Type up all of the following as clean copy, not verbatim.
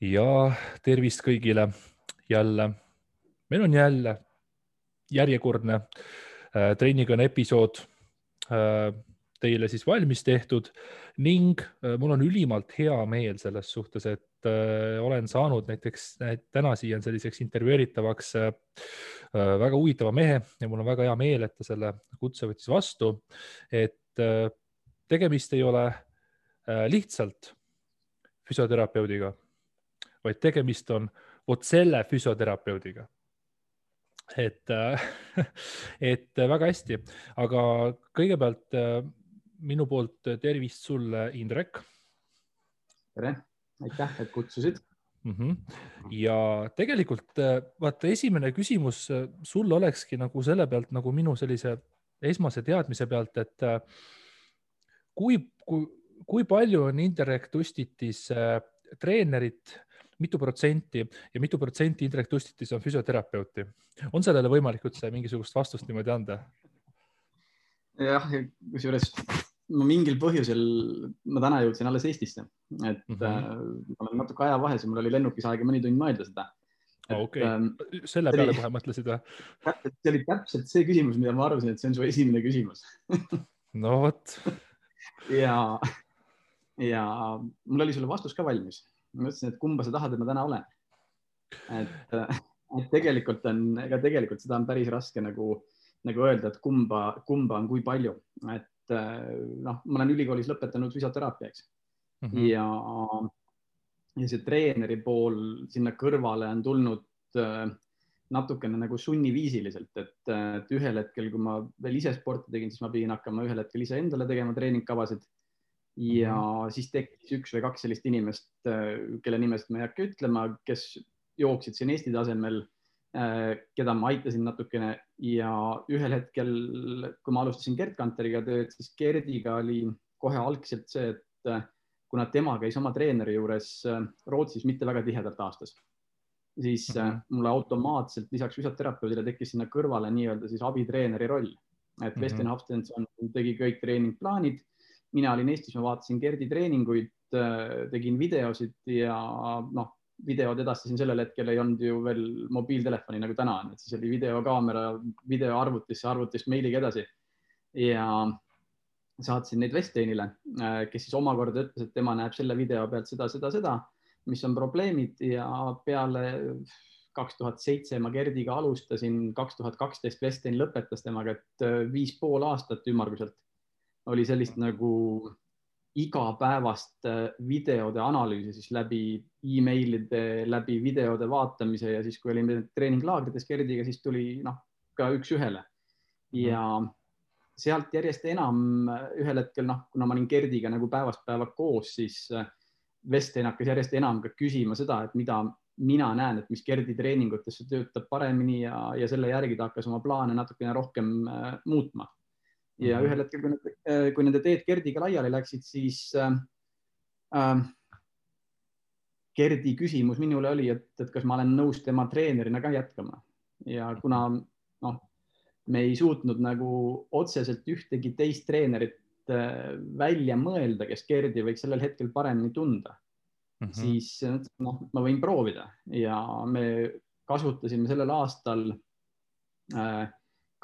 Ja tervist kõigile jälle. Meil on jälle järjekordne treenikõne episood teile siis valmis tehtud ning mul on ülimalt hea meel selles suhtes, et olen saanud näiteks täna siia selliseks intervjueeritavaks väga huvitava mehe ja mul on väga hea meel, et ta selle kutse võttis vastu, et tegemist ei ole lihtsalt füsioterapeudiga, vaid tegemist on selle füsioterapeudiga. Et väga hästi, aga kõigepealt minu poolt tervist sulle, Indrek. Tere, aitäh, et kutsusid. Ja tegelikult vaata, esimene küsimus sulle olekski nagu selle pealt, nagu minu sellise esmase teadmise pealt, et kui palju on Indrek Tustitis treenerit, mitu protsenti ja mitu protsenti Indrek Tustitis on füsioterapeuti? On sellele võimalik üldse mingisugust vastust niimoodi anda? Jah, kusjuures ma mingil põhjusel ma täna jõudsin alles Eestisse, et ma olen natuke aja vahes ja mul oli lennukis aega mõni tund mõelda seda. Okei. Selle peale kohe mõtlesid või? See oli täpselt see küsimus, mida ma arvasin, et see on su esimene küsimus. No vot. Ja mul oli sulle vastus ka valmis. Ma mõtlesin, et kumba sa tahad, et ma täna olen. Et tegelikult seda on päris raske nagu öelda, et kumba on kui palju. Et ma olen ülikoolis lõpetanud füsioteraapiaks ja see treeneri pool sinna kõrvale on tulnud natukene nagu sunniviisiliselt, et ühel hetkel, kui ma veel ise sporti tegin, siis ma pidin hakkama ühel hetkel ise endale tegema treeningkavasid. Ja siis tekkis üks või kaks sellist inimest, kelle nimest ma ei hakka ütlema, kes jooksid siin Eesti tasemel, keda ma aitasin natukene ja ühel hetkel, kui ma alustasin Gerd Kanteriga tööd, siis Gerdiga oli kohe algselt see, et kuna tema käis oma treeneri juures Rootsis mitte väga tihedalt aastas, siis mulle automaatselt lisaks füsioterapeudile tekkis sinna kõrvale nii-öelda siis abitreeneri roll, et Westin Hafstenson tegi kõik treeningplaanid. Mina olin Eestis, ma vaatasin Gerdi treeninguid, tegin videosid ja videod edastasin sellel hetkel ei olnud ju veel mobiiltelefoni nagu täna, et siis oli videokaamera, videoarvutisse, arvutist meiliga edasi ja saatsin neid Westinile, kes siis omakorda ütles, et tema näeb selle video pealt seda, mis on probleemid ja peale 2007 ma Gerdiga alustasin, 2012 Westin lõpetas temaga, et 5,5 aastat ümmarguselt oli sellist nagu igapäevast videode analüüsi siis läbi e-mailide, läbi videode vaatamise ja siis, kui olime treeninglaagrites Gerdiga, siis tuli ka üks ühele. Ja sealt järjest enam ühel hetkel, kuna ma olin Gerdiga nagu päevast päeva koos, siis Westin hakkas järjest enam ka küsima seda, et mida mina näen, et mis Gerdi treeningutesse töötab paremini ja selle järgi ta hakkas oma plaane natukene rohkem muutma. Ja ühel hetkel, kui nende teed Gerdiga laiali läksid, siis Gerdi küsimus minule oli, et kas ma olen nõus tema treenerina ka jätkama. Ja kuna me ei suutnud nagu otseselt ühtegi teist treenerit välja mõelda, kes Gerdi võiks sellel hetkel paremini tunda, siis ma võin proovida. Ja me kasutasime sellel aastal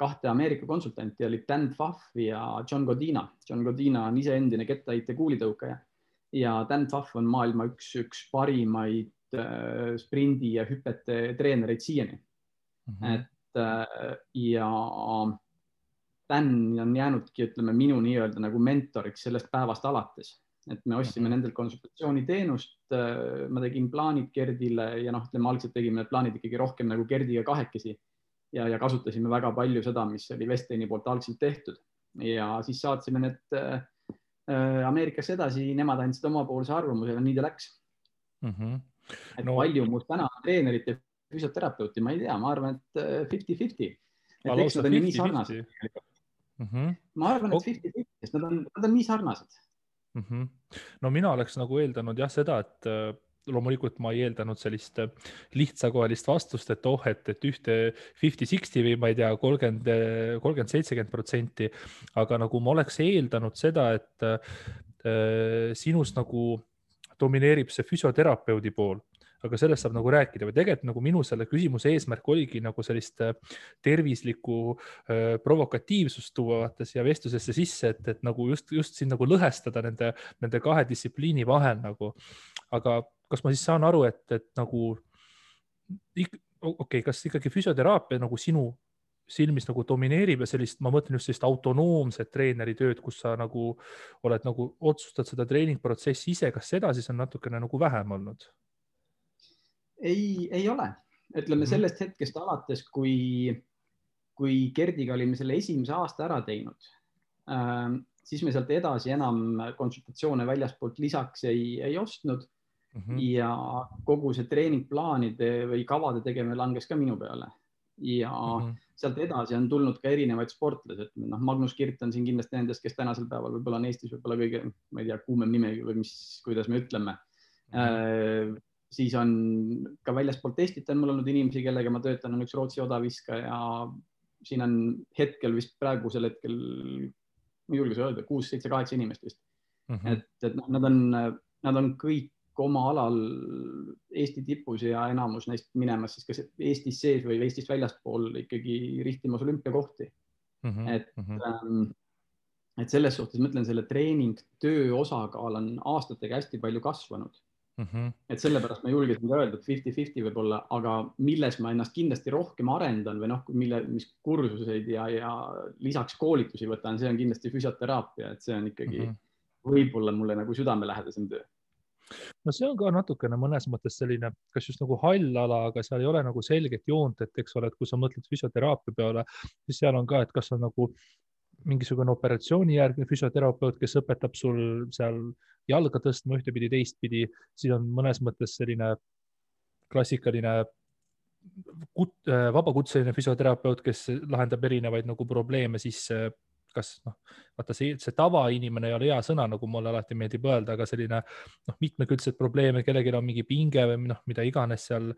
kahte Ameerika konsultanti, oli Dan Pfaff ja John Godina. John Godina on ise endine kettaheite kuulitõukaja ja Dan Pfaff on maailma üks parimaid sprindi ja hüpete treenereid siiani. Ja Dan on jäänudki, ütleme, minu nii-öelda nagu mentoriks sellest päevast alates. Et me ostsime nendel konsultatsiooniteenust, ma tegin plaanid Gerdile ja ütleme, algselt tegime need plaanid ikkagi rohkem nagu Gerdiga kahekesi. Ja kasutasime väga palju seda, mis oli Westini poolt algselt tehtud. Ja siis saatsime need Ameerikasse edasi, nemad andsid omapoolse arvamuse ja nii ta läks. Et palju mul täna treenerit ja füsioterapeuti, ma ei tea, ma arvan, et 50-50. Et eks nad on nii sarnased. Ma arvan, et 50-50, sest nad on nii sarnased. No mina oleks nagu eeldanud seda, et loomulikult ma ei eeldanud sellist lihtsakohelist vastust, et ühte 50-60 või ma ei tea, 30-70%, aga nagu ma oleks eeldanud seda, et sinus nagu domineerib see füsioterapeudi pool, aga sellest saab nagu rääkida või tegelikult nagu minu selle küsimuse eesmärk oligi nagu sellist tervislikku provokatiivsust tuua vaata siia vestlusesse sisse, et nagu just siin nagu lõhestada nende kahe distsipliini vahel nagu. Aga kas ma siis saan aru, et nagu okei, kas ikkagi füsioteraapia nagu sinu silmis nagu domineerib ja sellist, ma mõtlen just sellist autonoomset treeneri tööd, kus sa nagu oled nagu otsustad seda treeningprotsessi ise, kas seda siis on natukene nagu vähem olnud? Ei ole. Ütleme sellest hetkest alates, kui Gerdiga olime selle esimese aasta ära teinud, siis me sealt edasi enam konsultatsioone väljaspoolt lisaks ei ostnud ja kogu see treeningplaanide või kavade tegemine langes ka minu peale. Ja sealt edasi on tulnud ka erinevaid sportlased. Magnus Kirt on siin kindlasti nendest, kes tänasel päeval võib-olla on Eestis võib-olla kõige, ma ei tea, kuumem nime või kuidas me ütleme. Siis on ka väljaspoolt Eestit on mul olnud inimesi, kellega ma töötan, on üks Rootsi odaviska ja siin on hetkel vist praegusel hetkel, ma julges öelda, 6, 7, 8 inimest vist. Et nad on kõik oma alal Eesti tipus ja enamus neist minemas siis kas Eestis sees või Eestist väljaspool ikkagi rihtimas olümpiakohti. Et selles suhtes mõtlen, selle treeningtöö osakaal on aastatega hästi palju kasvanud. Et sellepärast ma julgesin ka öelda, et 50-50 võib olla, aga milles ma ennast kindlasti rohkem arendan või mis kursuseid ja lisaks koolitusi võtan, see on kindlasti füsioteraapia, et see on ikkagi võib-olla mulle nagu südamelähedasem töö. No see on ka natukene mõnes mõttes selline, kas just nagu hall ala, aga seal ei ole nagu selget joont, et eks ole, et kui sa mõtled füsioteraapia peale, siis seal on ka, et kas on nagu mingisugune operatsioonijärgne füsioterapeut, kes õpetab sul seal jalga tõstma ühtepidi, teistpidi, siis on mõnes mõttes selline klassikaline vabakutseline füsioterapeut, kes lahendab erinevaid nagu probleeme, siis kas vaata see tavainimene ei ole hea sõna, nagu mulle alati meeldib öelda, aga selline mitmekülgsed probleeme, kellelgi on mingi pinge või mida iganes seal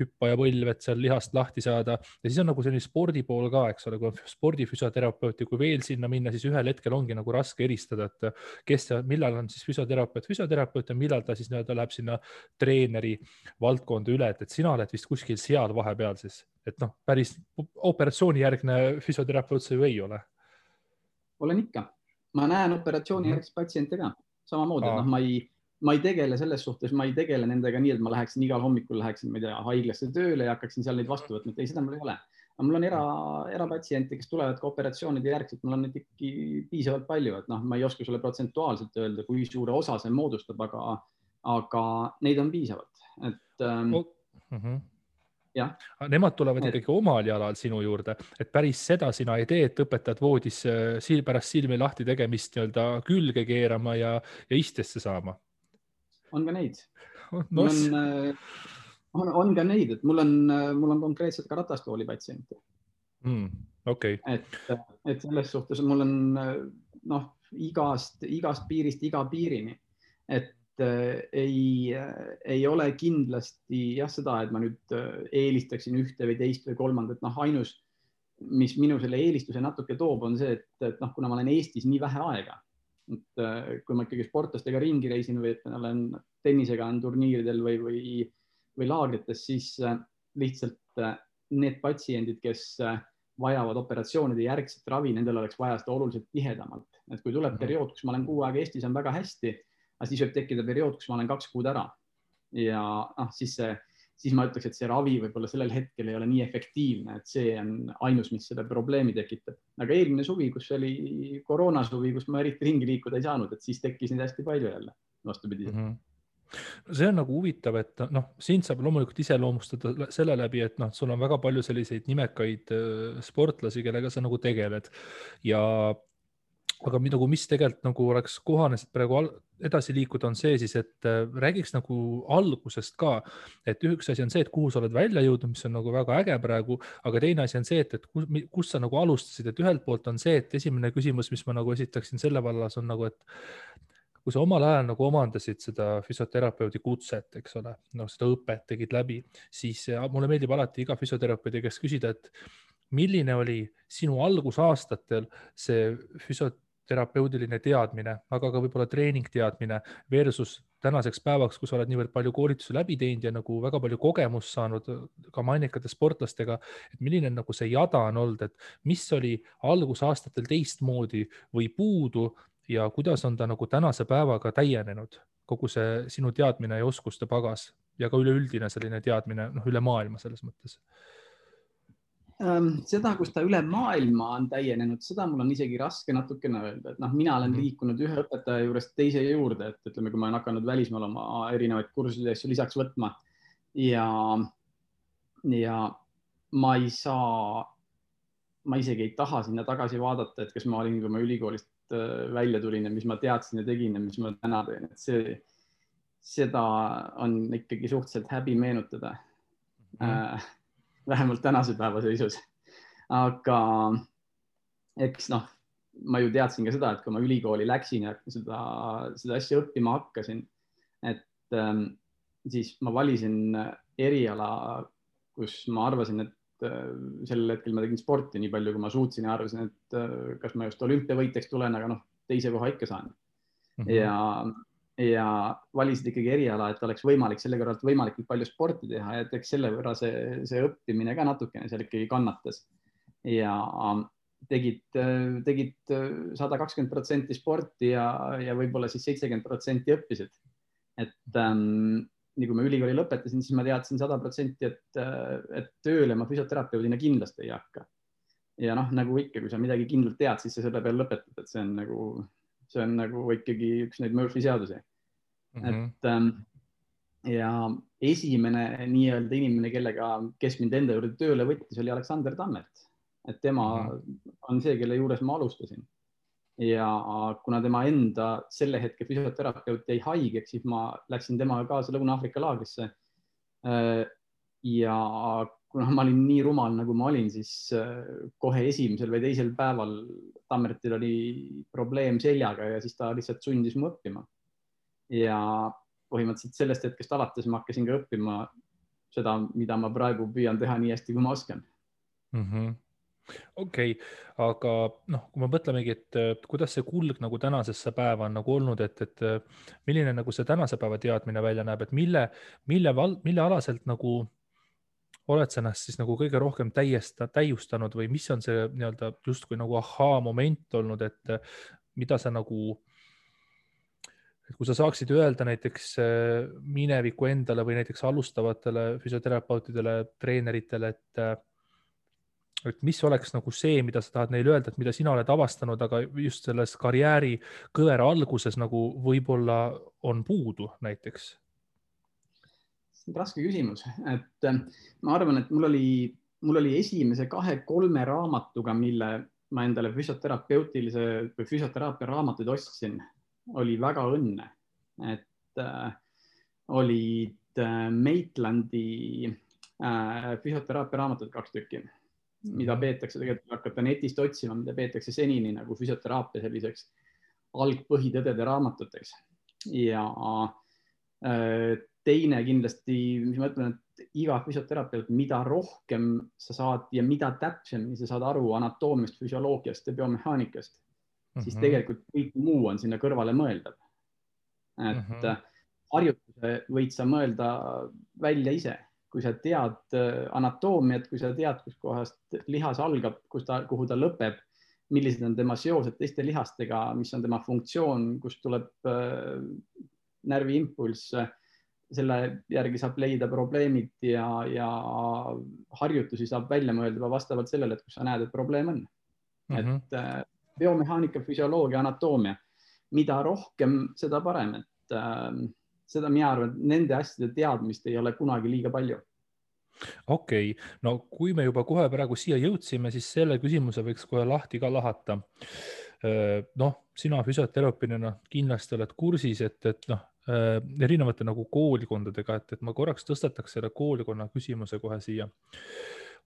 hüppa ja põlv, et seal lihast lahti saada. Ja siis on nagu selline spordi pool ka, eks ole, kui on spordifüsioterapeut ja kui veel sinna minna, siis ühel hetkel ongi nagu raske eristada, et millal on siis füsioterapeut ja millal ta siis läheb sinna treeneri valdkonda üle, et sina oled vist kuskil seal vahepeal siis, et päris operatsioonijärgne füsioterapeut see ju ei ole. Olen ikka. Ma näen operatsiooni järgis patsiente ka. Samamoodi, et ma ei tegele selles suhtes, ma ei tegele nendega nii, et ma läheksin igal hommikul haiglasse tööle ja hakkaksin seal neid vastu võtma. Ei, seda mul ei ole. Aga mul on erapatsiente, kes tulevad ka operatsioonide järgselt. Mul on neid ikkagi piisavalt palju, et ma ei oska sulle protsentuaalselt öelda, kui suure osa see moodustab, aga neid on piisavalt. Et, ja. Nemad tulevad ikkagi omal jalal sinu juurde, et päris seda sina ei tee, et õpetad voodis pärast silmi lahti tegemist külge keerama ja istesse saama. On ka neid. On ka neid, et mul on konkreetselt ka ratastooli patsiente. Okay. Et selles suhtes mul on igast piirist iga piirini, et ei ole kindlasti seda, et ma nüüd eelistaksin ühte või teist või kolmandat. Ainus, mis minu selle eelistuse natuke toob, on see, et kuna ma olen Eestis nii vähe aega, et kui ma ikkagi sportlastega ringi reisin või et ma olen tennisega turniiridel või laagrites, siis lihtsalt need patsiendid, kes vajavad operatsioonide järgset ravi, nendel oleks vaja seda oluliselt tihedamalt. Et kui tuleb periood, kus ma olen 6 aega Eestis, on väga hästi, aga siis võib tekkida periood, kus ma olen 2 kuud ära. Ja siis ma ütleks, et see ravi võib-olla sellel hetkel ei ole nii efektiivne, et see on ainus, mis selle probleemi tekitab. Aga eelmine suvi, kus oli koroonasuvi, kus ma eriti ringi liikuda ei saanud, et siis tekkis neid hästi palju jälle vastupidi. See on nagu huvitav, et siin saab loomulikult iseloomustada selle läbi, et sul on väga palju selliseid nimekaid sportlasi, kellega sa nagu tegeled. Aga mis tegelikult nagu oleks kohane praegu edasi liikuda, on see siis, et räägiks nagu algusest ka, et üks asi on see, et kuhu sa oled välja jõudnud, mis on nagu väga äge praegu, aga teine asi on see, et kus sa nagu alustasid, et ühelt poolt on see, et esimene küsimus, mis ma nagu esitaksin selle vallas on nagu, et kui sa omal ajal nagu omandasid seda füsioterapeudi kutset, eks ole, seda õpet tegid läbi, siis mulle meeldib alati iga füsioterapeudi käest küsida, et milline oli sinu algusaastatel see füsioterapeudiline teadmine, aga ka võib-olla treeningteadmine versus tänaseks päevaks, kui sa oled niivõrd palju koolitusi läbi teinud ja nagu väga palju kogemust saanud ka mainekate sportlastega, et milline nagu see jada on olnud, et mis oli algusaastatel teistmoodi või puudu ja kuidas on ta nagu tänase päevaga täienenud, kogu see sinu teadmine ja oskuste pagas ja ka üleüldine selline teadmine üle maailma selles mõttes? Seda, kus ta üle maailma on täienenud, seda mul on isegi raske natukene öelda, et mina olen liikunud ühe õpetaja juurest teise juurde, et ütleme, kui ma olen hakanud välismaal oma erinevaid kursusi asju lisaks võtma ja ma ei saa, ma isegi ei taha sinna tagasi vaadata, et kas ma olin, kui ma ülikoolist välja tulin ja mis ma teadsin ja tegin ja mis ma täna teen, et seda on ikkagi suhteliselt häbi meenutada. Vähemalt tänase päeva seisus. Aga eks ma ju teadsin ka seda, et kui ma ülikooli läksin ja seda asja õppima hakkasin, et siis ma valisin eriala, kus ma arvasin, et sellel hetkel ma tegin sporti nii palju, kui ma suutsin ja arvasin, et kas ma just olümpiavõitjaks tulen, aga teise koha ikka saan. Ja valisid ikkagi eriala, et oleks võimalik selle kõrvalt võimalikult palju sporti teha ja eks selle võrra see õppimine ka natukene seal ikkagi kannatas. Ja tegid 120% sporti ja võib-olla siis 70% õppisid. Et nii kui ma ülikooli lõpetasin, siis ma teadsin 100%, et tööle ma füsioterapeudina kindlasti ei hakka. Ja nagu ikka, kui sa midagi kindlalt tead, siis sa selle peal lõpetad, et see on nagu ikkagi üks neid Murphy seadusi. Et ja esimene nii-öelda inimene, kes mind enda juurde tööle võttis, oli Aleksander Tammert. Et tema on see, kelle juures ma alustasin. Ja kuna tema enda selle hetke füsioterapeut jäi haigeks, siis ma läksin temaga kaasa Lõuna-Aafrika laagrisse. Ja kuna ma olin nii rumal, nagu ma olin, siis kohe esimesel või teisel päeval Tammertil oli probleem seljaga ja siis ta lihtsalt sundis mu õppima. Ja põhimõtteliselt sellest hetkest alates ma hakkasin ka õppima seda, mida ma praegu püüan teha nii hästi, kui ma oskan. Okei, aga kui me mõtlemegi, et kuidas see kulg nagu tänasesse päeva on nagu olnud, et milline nagu see tänase päeva teadmine välja näeb, et mille alaselt nagu oled sa ennast siis nagu kõige rohkem täiustanud või mis on see nii-öelda justkui nagu ahaa moment olnud, et mida sa nagu, et kui sa saaksid öelda näiteks mineviku endale või näiteks alustavatele füsioterapeutidele, treeneritele, et mis oleks nagu see, mida sa tahad neile öelda, et mida sina oled avastanud, aga just selles karjääri kõvera alguses nagu võib-olla on puudu näiteks? Raske küsimus, et ma arvan, et mul oli esimese 2-3 raamatuga, mille ma endale füsioteraapia raamatuid ostsin, oli väga õnne, et olid Maitlandi füsioteraapia raamatud 2 tükki, mida peetakse tegelikult, hakata netist otsima, mida peetakse senini nagu füsioteraapia selliseks algpõhitõdede raamatuteks. Ja teine kindlasti, mis ma ütlen, et iga füsioterapeut, mida rohkem sa saad ja mida täpsemini sa saad aru anatoomiast, füsioloogiast ja biomehaanikast, siis tegelikult kõik muu on sinna kõrvale mõeldav. Et harjutuse võid sa mõelda välja ise, kui sa tead anatoomiat, kui sa tead, kus kohast lihas algab, kuhu ta lõpeb, millised on tema seosed teiste lihastega, mis on tema funktsioon, kust tuleb närviimpulss, selle järgi saab leida probleemid ja harjutusi saab välja mõelda vastavalt sellele, et kus sa näed, et probleem on. Et biomehaanika, füsioloogia, anatoomia, mida rohkem, seda parem, et seda mina arvan, et nende asjade teadmist ei ole kunagi liiga palju. Okei, no kui me juba kohe praegu siia jõudsime, siis selle küsimuse võiks kohe lahti ka lahata. Sina füsioterapeudina kindlasti oled kursis, et erinevate nagu koolikondadega, et ma korraks tõstataks selle koolikonna küsimuse kohe siia.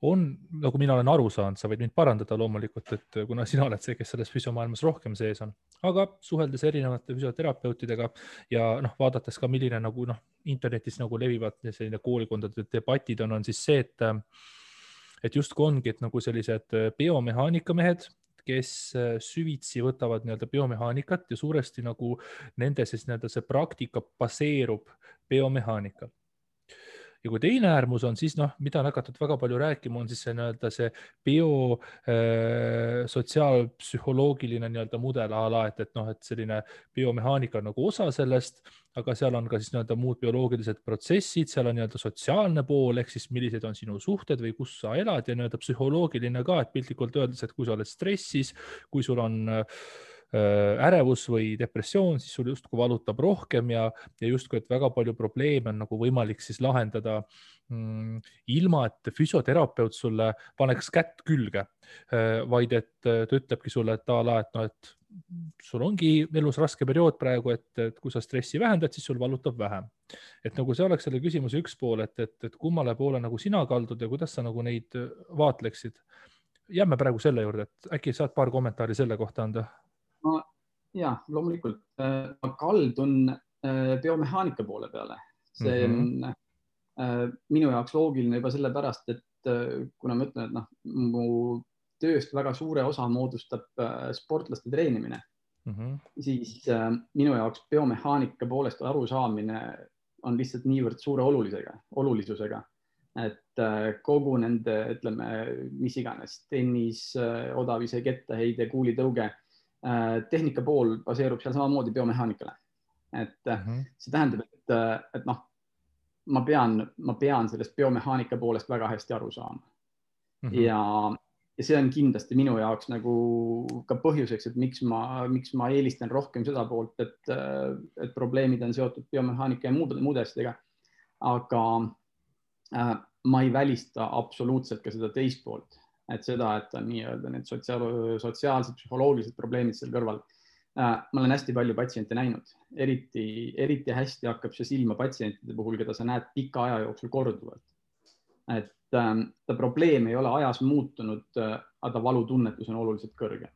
On, nagu mina olen aru saanud, sa võid mind parandada loomulikult, et kuna sina oled see, kes selles füsiomaailmas rohkem sees on, aga suheldes erinevate füsioterapeutidega ja vaadates ka, milline nagu internetis nagu levivad selline koolikondade debatid on siis see, et justkui ongi, et nagu sellised biomehaanika mehed, kes süvitsi võtavad nii-öelda biomehaanikat ja suuresti nagu nende siis nii-öelda see praktika baseerub biomehaanikal. Ja kui teine äärmus on siis, mida on hakatud väga palju rääkima, on siis see nii-öelda see sotsiaalpsühholoogiline nii-öelda mudel a la, et selline biomehaanika on nagu osa sellest, aga seal on ka siis nii-öelda muud bioloogilised protsessid, seal on nii-öelda sotsiaalne pool, ehk siis millised on sinu suhted või kus sa elad ja nii-öelda psühholoogiline ka, et piltlikult öeldes, et kui sa oled stressis, kui sul on ärevus või depressioon, siis sul justkui valutab rohkem ja justkui, et väga palju probleeme on nagu võimalik siis lahendada ilma, et füsioterapeut sulle paneks kätt külge, vaid et ta ütlebki sulle, et a la, et sul ongi elus raske periood praegu, et kui sa stressi vähendad, siis sul valutab vähem. Et nagu see oleks selle küsimuse üks pool, et kummale poole nagu sina kaldud ja kuidas sa nagu neid vaatleksid. Jääme praegu selle juurde, et äkki saad paar kommentaari selle kohta anda? Ja, loomulikult. Ma kaldun biomehaanika poole peale. See on minu jaoks loogiline juba sellepärast, et kuna ma ütlen, et mu tööst väga suure osa moodustab sportlaste treenimine, siis minu jaoks biomehaanika poolest arusaamine on lihtsalt niivõrd suure olulisusega, et kogu nende, ütleme, mis iganes, tennis, odavise kettaheide, kuulitõuge, tehnika pool baseerub seal samamoodi biomehaanikale. Et see tähendab, et ma pean sellest biomehaanika poolest väga hästi aru saama. Ja see on kindlasti minu jaoks nagu ka põhjuseks, et miks ma eelistan rohkem seda poolt, et probleemid on seotud biomehaanika ja muude asjadega. Aga ma ei välista absoluutselt ka seda teist poolt. Et seda, et on nii-öelda need sotsiaalsed, psühholoogilised probleemid seal kõrval. Ma olen hästi palju patsiente näinud. Eriti hästi hakkab see silma patsientide puhul, keda sa näed pika aja jooksul korduvalt. Et ta probleem ei ole ajas muutunud, aga valutunnetus on oluliselt kõrge.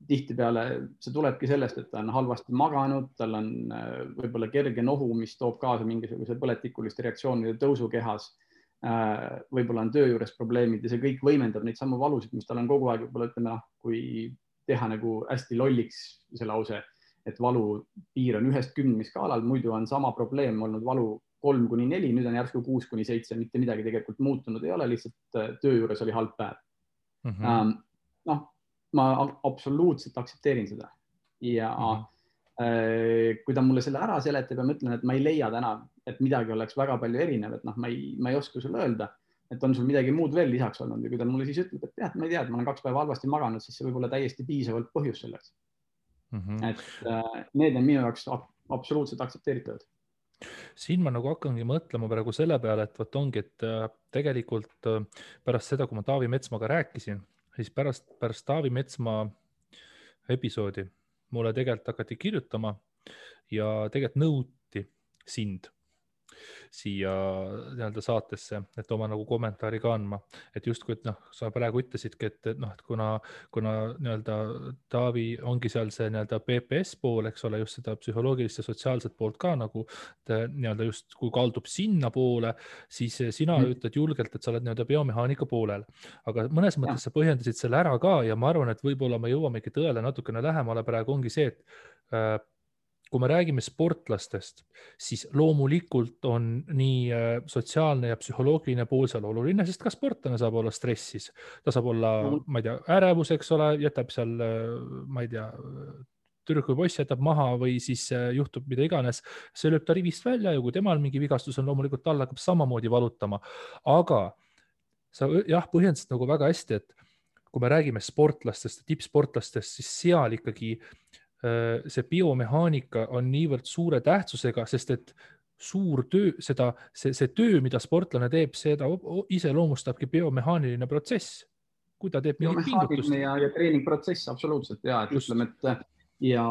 Tihtipeale see tulebki sellest, et ta on halvasti maganud, tal on võib-olla kerge nohu, mis toob kaasa mingisuguse põletikuliste reaktsioonide tõusu kehas. Võib-olla on töö juures probleemid ja see kõik võimendab neid samu valusid, mis tal on kogu aeg, võib-olla ütleme, kui teha nagu hästi lolliks see lause, et valu piir on 1-10 skaalal, muidu on sama probleem olnud valu 3-4, nüüd on järsku 6-7, mitte midagi tegelikult muutunud ei ole, lihtsalt töö juures oli halb päev. Ma absoluutselt aktsepteerin seda ja kui ta mulle selle ära seletab ja ma ütlen, et ma ei leia täna, et midagi oleks väga palju erinev, et ma ei oska sulle öelda, et on sul midagi muud veel lisaks olnud ja kui ta mulle siis ütleb, et jah, ma ei tea, et ma olen 2 päeva halvasti maganud, siis see võib olla täiesti piisavalt põhjus selleks. Et need on minu jaoks absoluutselt aktsepteeritavad. Siin ma nagu hakkangi mõtlema praegu selle peale, et võt ongi, et tegelikult pärast seda, kui ma Taavi Metsmaga rääkisin, siis pärast Taavi Metsmaa episoodi mulle tegelikult hakati kirjutama ja tegelikult nõuti sind siia nii-öelda saatesse, et oma nagu kommentaari ka andma. Et justkui, et sa praegu ütlesidki, et kuna nii-öelda Taavi ongi seal see nii-öelda PPS pool, eks ole, just seda psühholoogilist ja sotsiaalset poolt ka nagu nii-öelda just kui kaldub sinna poole, siis sina ütled julgelt, et sa oled nii-öelda biomehaanika poolel. Aga mõnes mõttes sa põhjendasid selle ära ka ja ma arvan, et võib-olla me jõuamegi tõele natukene lähemale praegu ongi see, et kui me räägime sportlastest, siis loomulikult on nii sotsiaalne ja psühholoogiline pool seal oluline, sest ka sportlane saab olla stressis. Ta saab olla, ma ei tea, ärevus, eks ole, jätab seal, ma ei tea, tüdruk või poiss jätab maha või siis juhtub mida iganes. See lööb ta rivist välja ja kui temal mingi vigastus on, loomulikult tal hakkab samamoodi valutama. Aga sa põhjendasid nagu väga hästi, et kui me räägime sportlastest, tippsportlastest, siis seal ikkagi see biomehaanika on niivõrd suure tähtsusega, sest et suur töö, see töö, mida sportlane teeb, seda iseloomustabki biomehaaniline protsess. Kui ta teeb mingit pingutust. Ja treeningprotsess, absoluutselt. Ja, et ütleme, et ja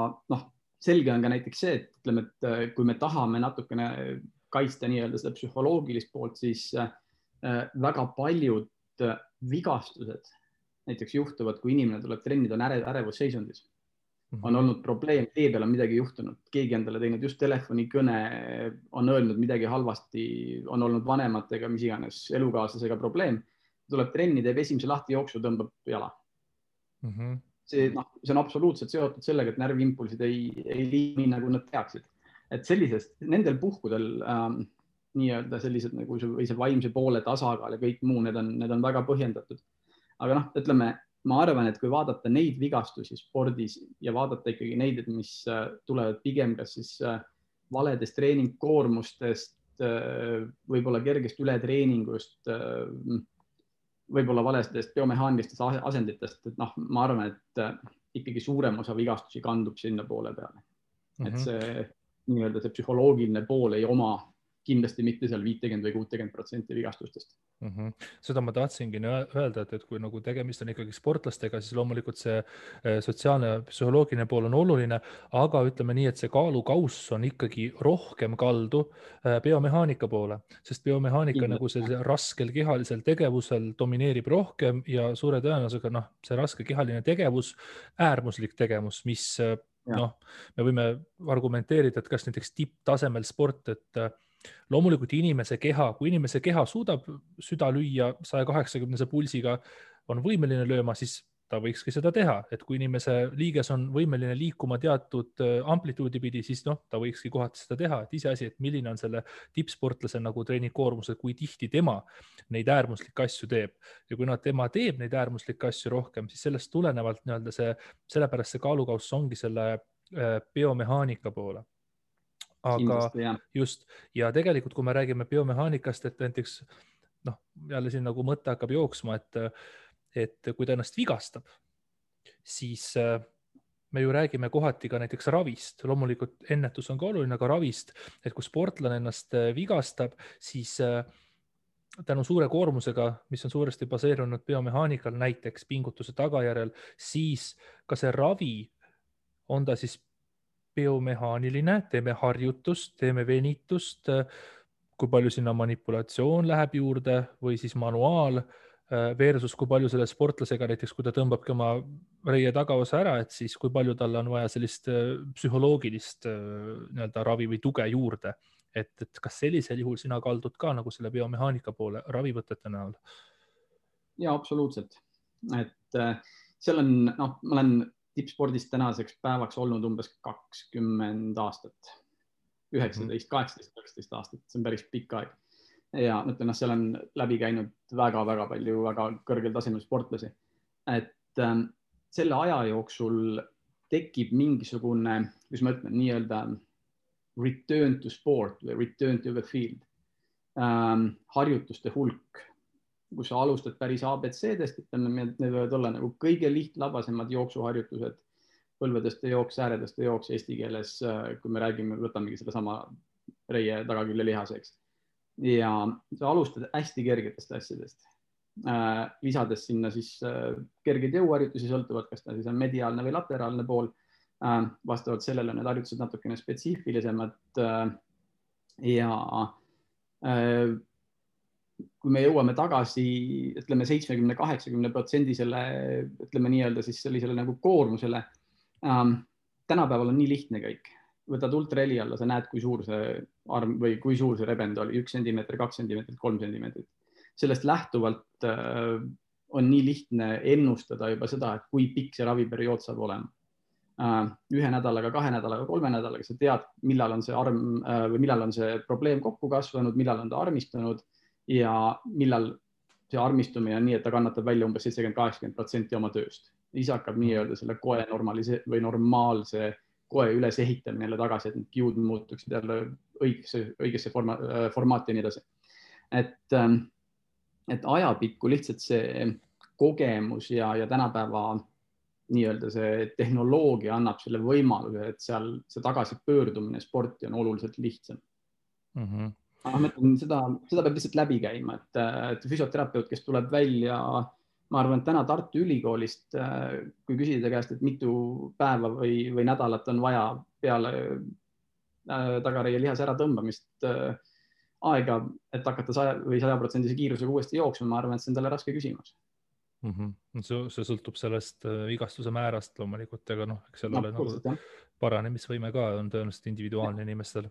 selge on ka näiteks see, et ütleme, et kui me tahame natukene kaitsta nii-öelda seda psühholoogilist poolt, siis väga paljud vigastused näiteks juhtuvad, kui inimene tuleb trennida, on ärevusseisundis. On olnud probleem, tee peal on midagi juhtunud, keegi endale teinud just telefonikõne, on öelnud midagi halvasti, on olnud vanematega, mis iganes elukaaslasega probleem. tuleb trenni, teeb esimese lahtijooksu, tõmbab jala. See on absoluutselt seotud sellega, et närviimpulsid ei liigi nagu nad peaksid. Et nendel puhkudel nii-öelda sellised nagu see vaimse poole tasakaal ja kõik muu, need on väga põhjendatud. Aga ütleme, ma arvan, et kui vaadata neid vigastusi spordis ja vaadata ikkagi neid, mis tulevad pigem kas siis valedest treeningkoormustest, võib-olla kergest ületreeningust, võib-olla valestest biomehaanilistest asenditest, et ma arvan, et ikkagi suurem osa vigastusi kandub sinna poole peale. Et see nii-öelda see psühholoogiline pool ei oma kindlasti mitte seal 50 või 60% vigastustest. Seda ma tahtsingi öelda, et kui nagu tegemist on ikkagi sportlastega, siis loomulikult see sotsiaalne ja psühholoogiline pool on oluline, aga ütleme nii, et see kaalukauss on ikkagi rohkem kaldu biomehaanika poole, sest biomehaanika nagu see raskel kehalisel tegevusel domineerib rohkem ja suure tõenäosusega see raske kehaline tegevus, äärmuslik tegevus, mis me võime argumenteerida, et kas näiteks tipptasemel sport, et loomulikult kui inimese keha suudab süda lüüa 180 pulsiga, on võimeline lööma, siis ta võikski seda teha. Et kui inimese liiges on võimeline liikuma teatud amplituudi pidi, siis ta võikski kohati seda teha. Et iseasi, et milline on selle tippsportlase nagu treeningkoormus, kui tihti tema neid äärmuslikke asju teeb. Ja kui tema teeb neid äärmuslikke asju rohkem, siis sellest tulenevalt sellepärast see kaalukauss ongi selle biomehaanika poole. Aga just, ja tegelikult, kui me räägime biomehaanikast, et näiteks, jälle siin nagu mõte hakkab jooksma, et kui ta ennast vigastab, siis me ju räägime kohati ka näiteks ravist. Loomulikult ennetus on ka oluline, aga ravist, et kui sportlane ennast vigastab, siis tänu suure koormusega, mis on suuresti baseerunud biomehaanikal, näiteks pingutuse tagajärjel, siis ka see ravi on ta siis biomehaaniline, teeme harjutust, teeme venitust, kui palju sinna manipulatsioon läheb juurde või siis manuaal versus kui palju selle sportlasega näiteks, kui ta tõmbabki oma reie tagaosa ära, et siis kui palju talle on vaja sellist psühholoogilist ravi või tuge juurde. Et kas sellisel juhul sina kaldud ka nagu selle biomehaanika poole ravivõtete näol? Ja absoluutselt. Et seal on, ma olen tippspordist tänaseks päevaks olnud umbes 20 aastat, 19, 18, 19 aastat, see on päris pikk aeg. Ja ütlen, seal on läbi käinud väga-väga palju väga kõrgel tasemel sportlasi. Et selle aja jooksul tekib mingisugune, kuidas ma ütlen, nii-öelda return to sport või return to the field. Harjutuste hulk, kus sa alustad päris ABC-dest, need võivad olla nagu kõige lihtlabasemad jooksuharjutused, põlvedeste jooks, ääredeste jooks eesti keeles, kui me räägime, võtamegi selle sama reie tagakülje lihaseks. Ja sa alustad hästi kergetest asjadest, lisades sinna siis kergeid jõuharjutusi, sõltuvad, kas ta siis on mediaalne või lateraalne pool. Vastavalt sellele need harjutused natukene spetsiifilisemad ja kui me jõuame tagasi, ütleme 70-80% selle, ütleme nii-öelda siis sellisele nagu koormusele, tänapäeval on nii lihtne kõik. Võtad ultraheli alla, sa näed, kui suur see arm või kui suur see rebend oli, 1 sentimeetrit, 2 sentimeetrit, 3 sentimeetrit. Sellest lähtuvalt on nii lihtne ennustada juba seda, et kui pikk see raviperiood saab olema. 1 nädalaga, 2 nädalaga, 3 nädalaga sa tead, millal on see arm või millal on see probleem kokku kasvanud, millal on ta armistunud ja millal see armistumine on nii, et ta kannatab välja umbes 70-80% oma tööst. Siis hakkab nii-öelda selle koe või normaalse koe üles ehitamine jälle tagasi, et need kiud muutuksid jälle õigesse formaati ja nii edasi. Et ajapikku lihtsalt see kogemus ja tänapäeva nii-öelda see tehnoloogia annab selle võimaluse, et seal see tagasipöördumine sporti on oluliselt lihtsam. Seda peab lihtsalt läbi käima, et füsioterapeut, kes tuleb välja, ma arvan, et täna Tartu Ülikoolist, kui küsida käest, et mitu päeva või nädalat on vaja peale tagareie lihase ära tõmbamist aega, et hakata 100% kiirusega uuesti jooksma, ma arvan, et see on talle raske küsimus. See sõltub sellest vigastuse määrast loomulikult, aga eks seal ole nagu paranemisvõime ka on tõenäoliselt individuaalne inimestel.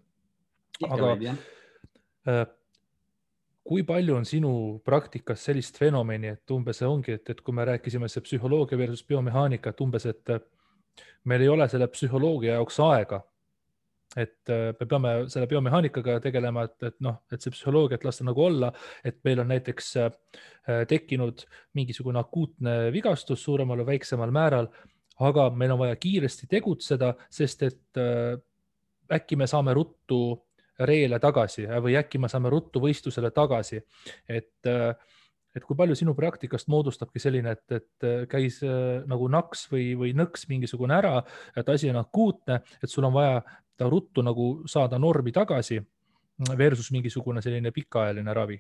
kui palju on sinu praktikas sellist fenomeni, et umbes ongi, et kui me rääkisime see psühholoogia versus biomehaanika, et umbes, et meil ei ole selle psühholoogia jaoks aega, et me peame selle biomehaanikaga tegelema, et noh, et see psühholoogia, et lasta nagu olla, et meil on näiteks tekkinud mingisugune akuutne vigastus suuremal või väiksemal määral, aga meil on vaja kiiresti tegutseda, sest et äkki me saame ruttu reele tagasi või äkki me saame ruttu võistlusele tagasi. Et kui palju sinu praktikast moodustabki selline, et käis nagu naks või nõks mingisugune ära, et asi on akuutne, et sul on vaja ta ruttu nagu saada normi tagasi versus mingisugune selline pikaajaline ravi?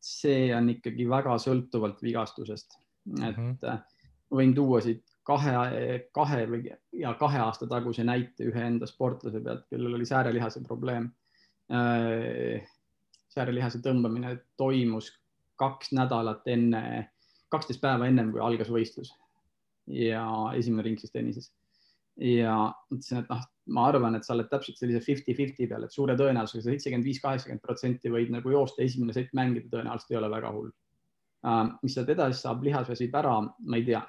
See on ikkagi väga sõltuvalt vigastusest. Et võin tuua siit kahe aasta taguse näite ühe enda sportlase pealt, kellel oli säärelihase probleem. Säärelihase tõmbamine toimus 2 nädalat 12 päeva ennem, kui algas võistlus ja esimene ring siis tennises. Ja ütlesin, et ma arvan, et sa oled täpselt sellise 50-50 peal, et suure tõenäosusega 75-80% võid nagu joosta, esimene sett mängida tõenäoliselt ei ole väga hull. Mis sealt edasi saab, lihas väsib ära, ma ei tea.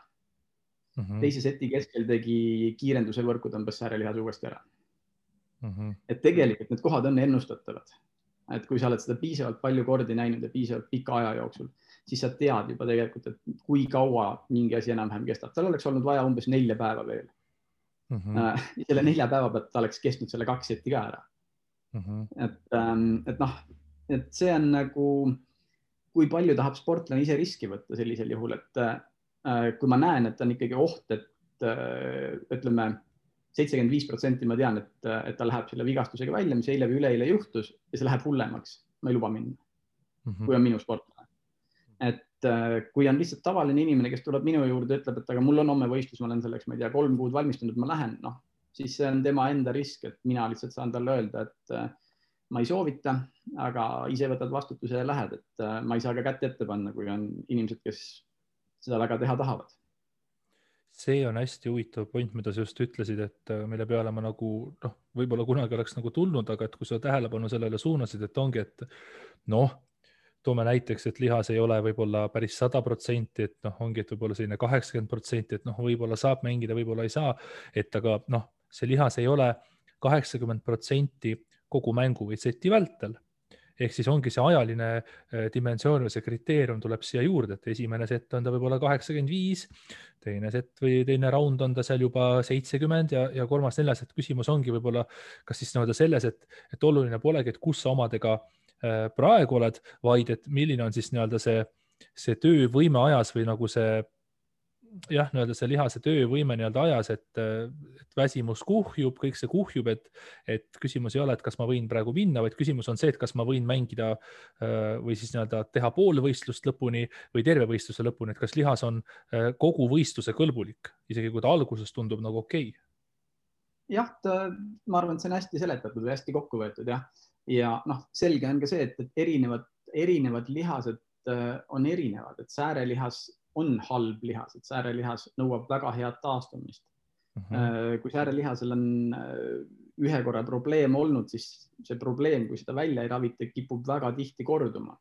Teise seti keskel tegi kiirenduse võrku, tõmbas säärelihas uuesti ära. Et tegelikult need kohad on ennustatavad. Et kui sa oled seda piisavalt palju kordi näinud ja piisavalt pika aja jooksul, siis sa tead juba tegelikult, et kui kaua mingi asi enam-vähem kestab. Tal oleks olnud vaja umbes 4 päeva veel. Selle 4 päeva pealt ta oleks kestnud selle 2 seti ka ära. Et see on nagu, kui palju tahab sportlane ise riski võtta sellisel juhul, et kui ma näen, et on ikkagi oht, et ütleme 75% ma tean, et ta läheb selle vigastusega välja, mis eile või üleeile juhtus ja see läheb hullemaks. Ma ei luba minna, kui on minu sportlane. Et kui on lihtsalt tavaline inimene, kes tuleb minu juurde, ütleb, et aga mul on homme võistlus, ma olen selleks, ma ei tea, 3 kuud valmistunud, ma lähen, siis see on tema enda risk, et mina lihtsalt saan talle öelda, et ma ei soovita, aga ise võtad vastutuse ja lähed, et ma ei saa ka kätt ette panna, kui on inimesed, kes seda väga teha tahavad. See on hästi huvitav point, mida sa just ütlesid, et mille peale ma nagu, võib-olla kunagi oleks nagu tulnud, aga et kui sa tähelepanu sellele suunasid, et ongi, et toome näiteks, et lihas ei ole võib-olla päris 100%, et ongi, et võib-olla selline 80%, et võib-olla saab mängida, võib-olla ei saa, et aga see lihas ei ole 80% kogu mängu või seti vältel. Ehk siis ongi see ajaline dimensioon või see kriteerium tuleb siia juurde, et esimene sett on ta võib-olla 85, teine sett või teine raund on ta seal juba 70 ja kolmas, neljas, et küsimus ongi võib-olla kas siis selles, et oluline polegi, et kus sa omadega praegu oled, vaid et milline on siis see töövõime ajas või nagu see see lihase töövõime ajas, et väsimus kuhjub, kõik see kuhjub, et küsimus ei ole, et kas ma võin praegu minna, vaid küsimus on see, et kas ma võin mängida või siis teha pool võistlust lõpuni või terve võistluse lõpuni, et kas lihas on kogu võistluse kõlbulik, isegi kui ta alguses tundub nagu okei. Jah, ma arvan, et see on hästi seletatud või hästi kokku võetud, jah. Ja selge on ka see, et erinevad lihased on erinevad, et säärelihas on halb lihas, et säärelihas nõuab väga head taastumist. Kui säärelihasel on ühe korra probleem olnud, siis see probleem, kui seda välja ei ravita, kipub väga tihti korduma.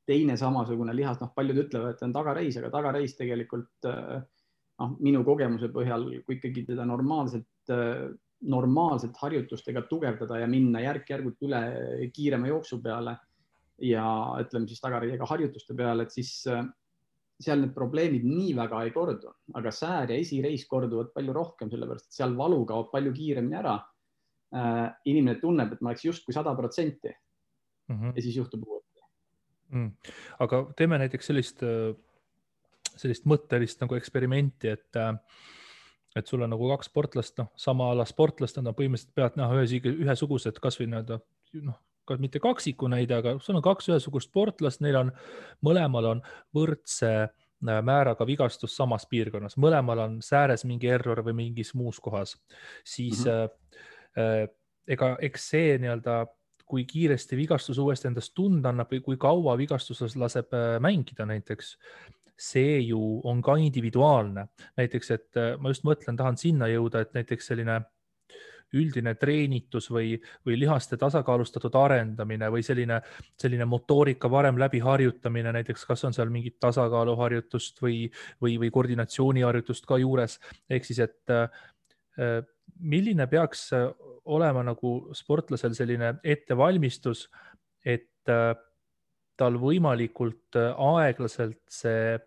Teine samasugune lihas, paljud ütlevad, et on tagareis, aga tagareis tegelikult minu kogemuse põhjal, kui ikkagi teda normaalselt harjutustega tugevdada ja minna järk-järgult üle kiirema jooksu peale ja ütleme siis tagareiega harjutuste peale, et siis seal need probleemid nii väga ei kordu, aga säär ja esireis korduvad palju rohkem, sellepärast et seal valu kaob palju kiiremini ära. Inimene tunneb, et ma oleks justkui 100% ja siis juhtub uuesti. Aga teeme näiteks sellist mõttelist nagu eksperimenti, et sul on nagu 2 sportlast, sama ala sportlast, nad on põhimõtteliselt pealt ühesugused, kas või mitte kaksiku näide, aga sul on 2 ühesugust sportlast, neil on mõlemal on võrdse määraga vigastus samas piirkonnas, mõlemal on sääres mingi error või mingis muus kohas, siis eks see kui kiiresti vigastus uuesti endast tunda annab või kui kaua vigastuses laseb mängida näiteks, see ju on ka individuaalne. Näiteks, et ma just mõtlen, tahan sinna jõuda, et näiteks selline üldine treenitus või lihaste tasakaalustatud arendamine või selline motoorika varem läbi harjutamine, näiteks kas on seal mingit tasakaaluharjutust või koordinatsiooniharjutust ka juures, ehk siis, et milline peaks olema nagu sportlasel selline ettevalmistus, et tal võimalikult aeglaselt see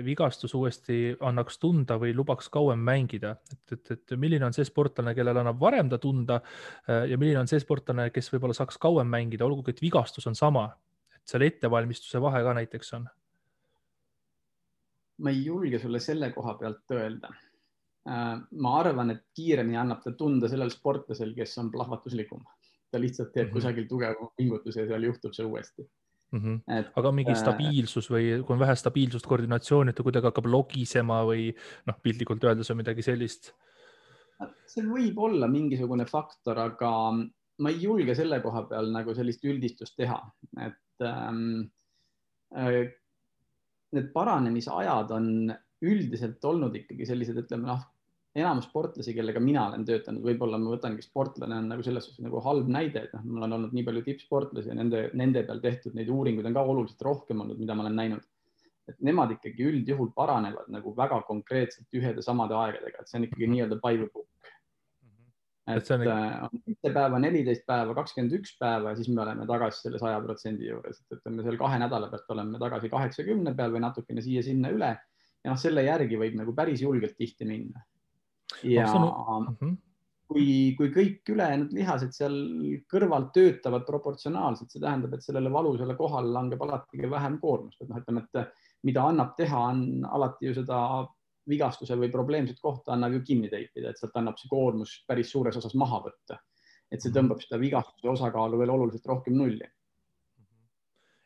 vigastus uuesti annaks tunda või lubaks kauem mängida, et milline on see sportlane, kellel annab varem ta tunda ja milline on see sportlane, kes võib-olla saaks kauem mängida, olgugi et vigastus on sama, et seal ettevalmistuse vahe ka näiteks on? Ma ei julge sulle selle koha pealt öelda. Ma arvan, et kiiremini annab ta tunda sellel sportlasel, kes on plahvatuslikum. Ta lihtsalt teeb kusagil tugeva pingutuse ja seal juhtub see uuesti. Aga mingi stabiilsus või kui on vähe stabiilsust, koordinatsiooni, et ta kuidagi hakkab logisema või piltlikult öeldes on midagi sellist? See võib olla mingisugune faktor, aga ma ei julge selle koha peal nagu sellist üldistust teha, et need paranemisajad on üldiselt olnud ikkagi sellised, ütleme enamus sportlasi, kellega mina olen töötanud, võib-olla ma võtangi sportlane on nagu selles suhtes nagu halb näide, et mul on olnud nii palju tippsportlasi ja nende peal tehtud neid uuringuid on ka oluliselt rohkem olnud, mida ma olen näinud. Et nemad ikkagi üldjuhul paranevad nagu väga konkreetselt ühede samade aegadega, et see on ikkagi nii-öelda by the book. Et on 7 päeva, 14 päeva, 21 päeva ja siis me oleme tagasi selle 100% juures, et ütleme seal 2 nädala pealt oleme tagasi 80 peal või natukene siia-sinna üle ja selle järgi võib nagu päris julgelt tihti minna. Ja kui kõik ülejäänud lihased seal kõrvalt töötavad proportsionaalselt, see tähendab, et sellele valusale kohale langeb alati vähem koormust. Et ütleme, et mida annab teha, on alati ju seda vigastuse või probleemset kohta annab ju kinni teipida, et sealt annab see koormus päris suures osas maha võtta. Et see tõmbab seda vigastuse osakaalu veel oluliselt rohkem nulli.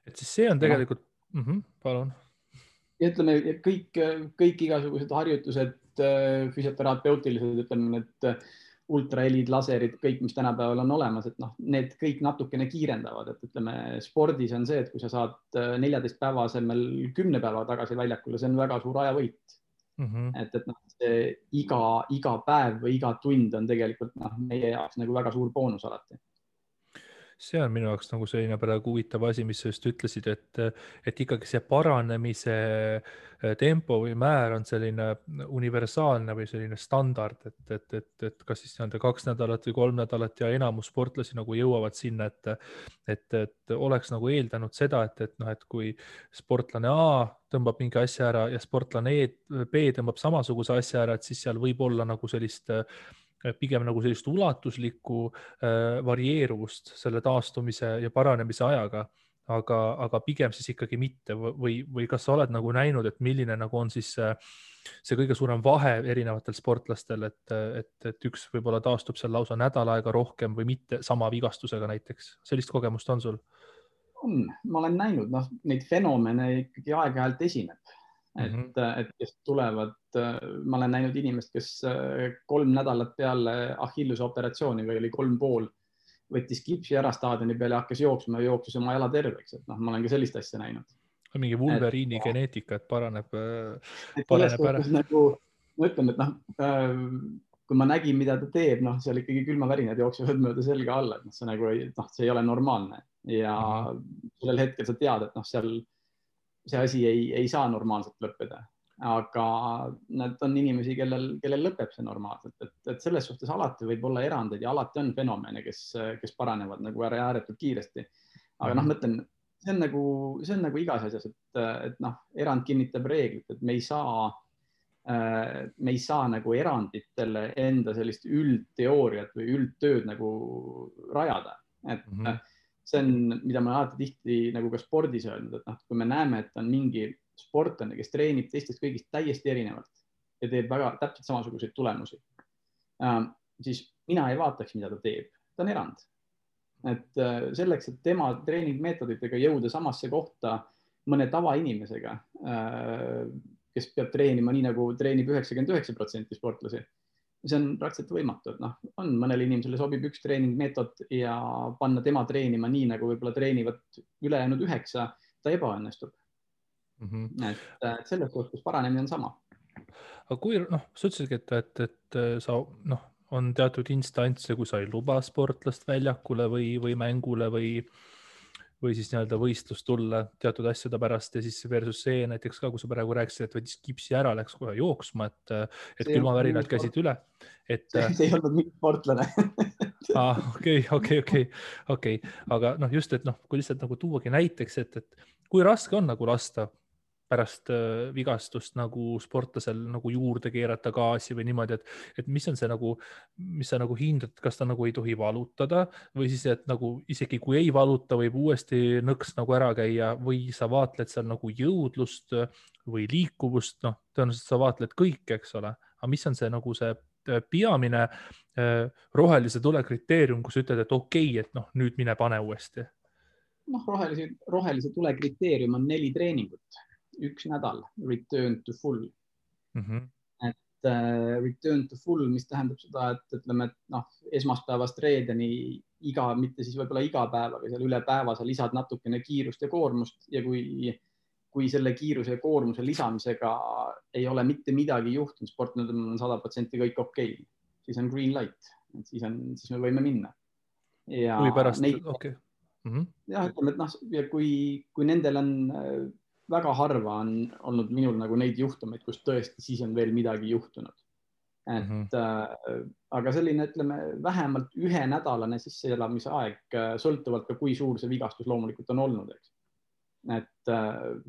Et siis see on tegelikult... palun. Ja ütleme, kõik igasugused harjutused, füsioterapeutilised, ütleme, et ultrahelid, laserid, kõik, mis tänapäeval on olemas, et need kõik natukene kiirendavad, et ütleme, spordis on see, et kui sa saad 14 päeva asemel 10 päeva tagasi väljakule, see on väga suur ajavõit. Et see iga päev või iga tund on tegelikult meie jaoks nagu väga suur boonus alati. See on minu jaoks nagu selline praegu huvitav asi, mis sa just ütlesid, et ikkagi see paranemise tempo või määr on selline universaalne või selline standard, et kas siis 2 nädalat või 3 nädalat ja enamus sportlasi nagu jõuavad sinna, et oleks nagu eeldanud seda, et kui sportlane A tõmbab mingi asja ära ja sportlane B tõmbab samasuguse asja ära, et siis seal võib olla nagu pigem nagu sellist ulatuslikku varieeruvust selle taastumise ja paranemise ajaga, aga pigem siis ikkagi mitte või kas sa oled nagu näinud, et milline nagu on siis see kõige suurem vahe erinevatel sportlastel, et üks võib-olla taastub seal lausa nädal aega rohkem või mitte sama vigastusega näiteks. Sellist kogemust on sul? Ma olen näinud, neid fenomene ikkagi aeg-ajalt esineb. Et kes tulevad, ma olen näinud inimest, kes 3 nädalat peale Achilluse operatsiooni või oli 3,5, võttis kipsi ära staadioni peale ja hakkas jooksma ja jooksis oma jala terveks. Et ma olen ka sellist asja näinud. Mingi Wolverine'i geneetika, et paraneb ära. Nagu, ma ütlen, et kui ma nägin, mida ta teeb, seal ikkagi külmavärinad jooksevad mööda selga alla, et see ei ole normaalne ja sellel hetkel sa tead, et seal see asi ei saa normaalselt lõppeda, aga nad on inimesi, kellel lõpeb see normaalselt, et selles suhtes alati võib olla erandeid ja alati on fenomene, kes paranevad nagu ääretult kiiresti. Aga mõtlen, see on nagu igas asjas, et erand kinnitab reeglit, et me ei saa nagu eranditele enda sellist üldteooriat või üldtööd nagu rajada, et see on, mida ma alati tihti nagu ka spordis öelnud, et kui me näeme, et on mingi sportlane, kes treenib teistest kõigist täiesti erinevalt ja teeb väga täpselt samasuguseid tulemusi, siis mina ei vaataks, mida ta teeb. Ta on erand. Et selleks, et tema treeningmeetoditega jõuda samasse kohta mõne tavainimesega, kes peab treenima nii, nagu treenib 99% sportlasi, see on praktiliselt võimatu, et on mõnele inimesele sobib üks treeningmeetod ja panna tema treenima nii, nagu võib-olla treenivad ülejäänud 9, ta ebaõnnestub. Et selles suhtes paranemine on sama. Aga kui, sa ütlesidki, et sa on teatud instantse, kui sa ei luba sportlast väljakule või mängule või siis nii-öelda võistlust tulla teatud asjade pärast ja siis versus see näiteks ka, kui sa praegu rääkisid, et võttis kipsi ära, läks kohe jooksma, et külmavärinad käisid üle. See ei olnud mingi sportlane. Okei. Aga just, et kui lihtsalt nagu tuuagi näiteks, et kui raske on nagu lasta pärast vigastust nagu sportlasel nagu juurde keerata gaasi või niimoodi, et mis on see nagu, mis sa nagu hindad, kas ta nagu ei tohi valutada või siis, et nagu isegi kui ei valuta, võib uuesti nõks nagu ära käia või sa vaatled seal nagu jõudlust või liikuvust, tõenäoliselt sa vaatled kõike, eks ole, aga mis on see nagu see peamine rohelise tule kriteerium, kus ütled, et okei, et nüüd mine pane uuesti. Rohelise tule kriteerium on 4 treeningut. 1 nädal, return to full. Et return to full, mis tähendab seda, et ütleme, et esmaspäevast reedeni mitte siis võib-olla iga päev, aga seal üle päeva sa lisad natukene kiirust ja koormust ja kui selle kiiruse ja koormuse lisamisega ei ole mitte midagi juhtunud, sportlasel on 100% kõik okei, siis on green light, siis me võime minna. Ja kui pärast, okei. Jah, ütleme, et ja kui nendel on väga harva on olnud minul nagu neid juhtumeid, kus tõesti siis on veel midagi juhtunud. Aga selline, ütleme, vähemalt 1-nädalane sisseelamise aeg, sõltuvalt ka kui suur see vigastus loomulikult on olnud. Eks. Et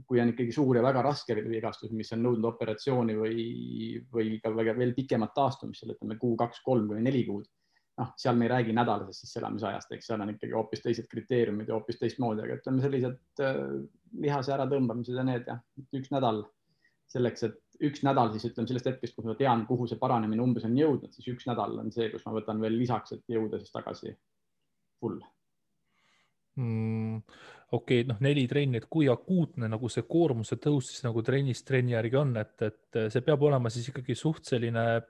kui on ikkagi suur ja väga raske vigastus, mis on nõudnud operatsiooni või ka veel pikemat taastumist, ütleme 2, 3 või 4 kuud, seal me ei räägi nädalasest sisseelamisajast, eks seal on ikkagi hoopis teised kriteeriumid ja hoopis teistmoodi, aga ütleme sellised lihase ära tõmbamised ja need 1 nädal selleks, et 1 nädal siis ütleme sellest hetkest, kus ma tean, kuhu see paranemine umbes on jõudnud, siis 1 nädal on see, kus ma võtan veel lisaks, et jõuda siis tagasi full. Okei, 4 trenni, et kui akuutne nagu see koormuse tõus siis nagu trennist trenni järgi on, et see peab olema siis ikkagi suht selline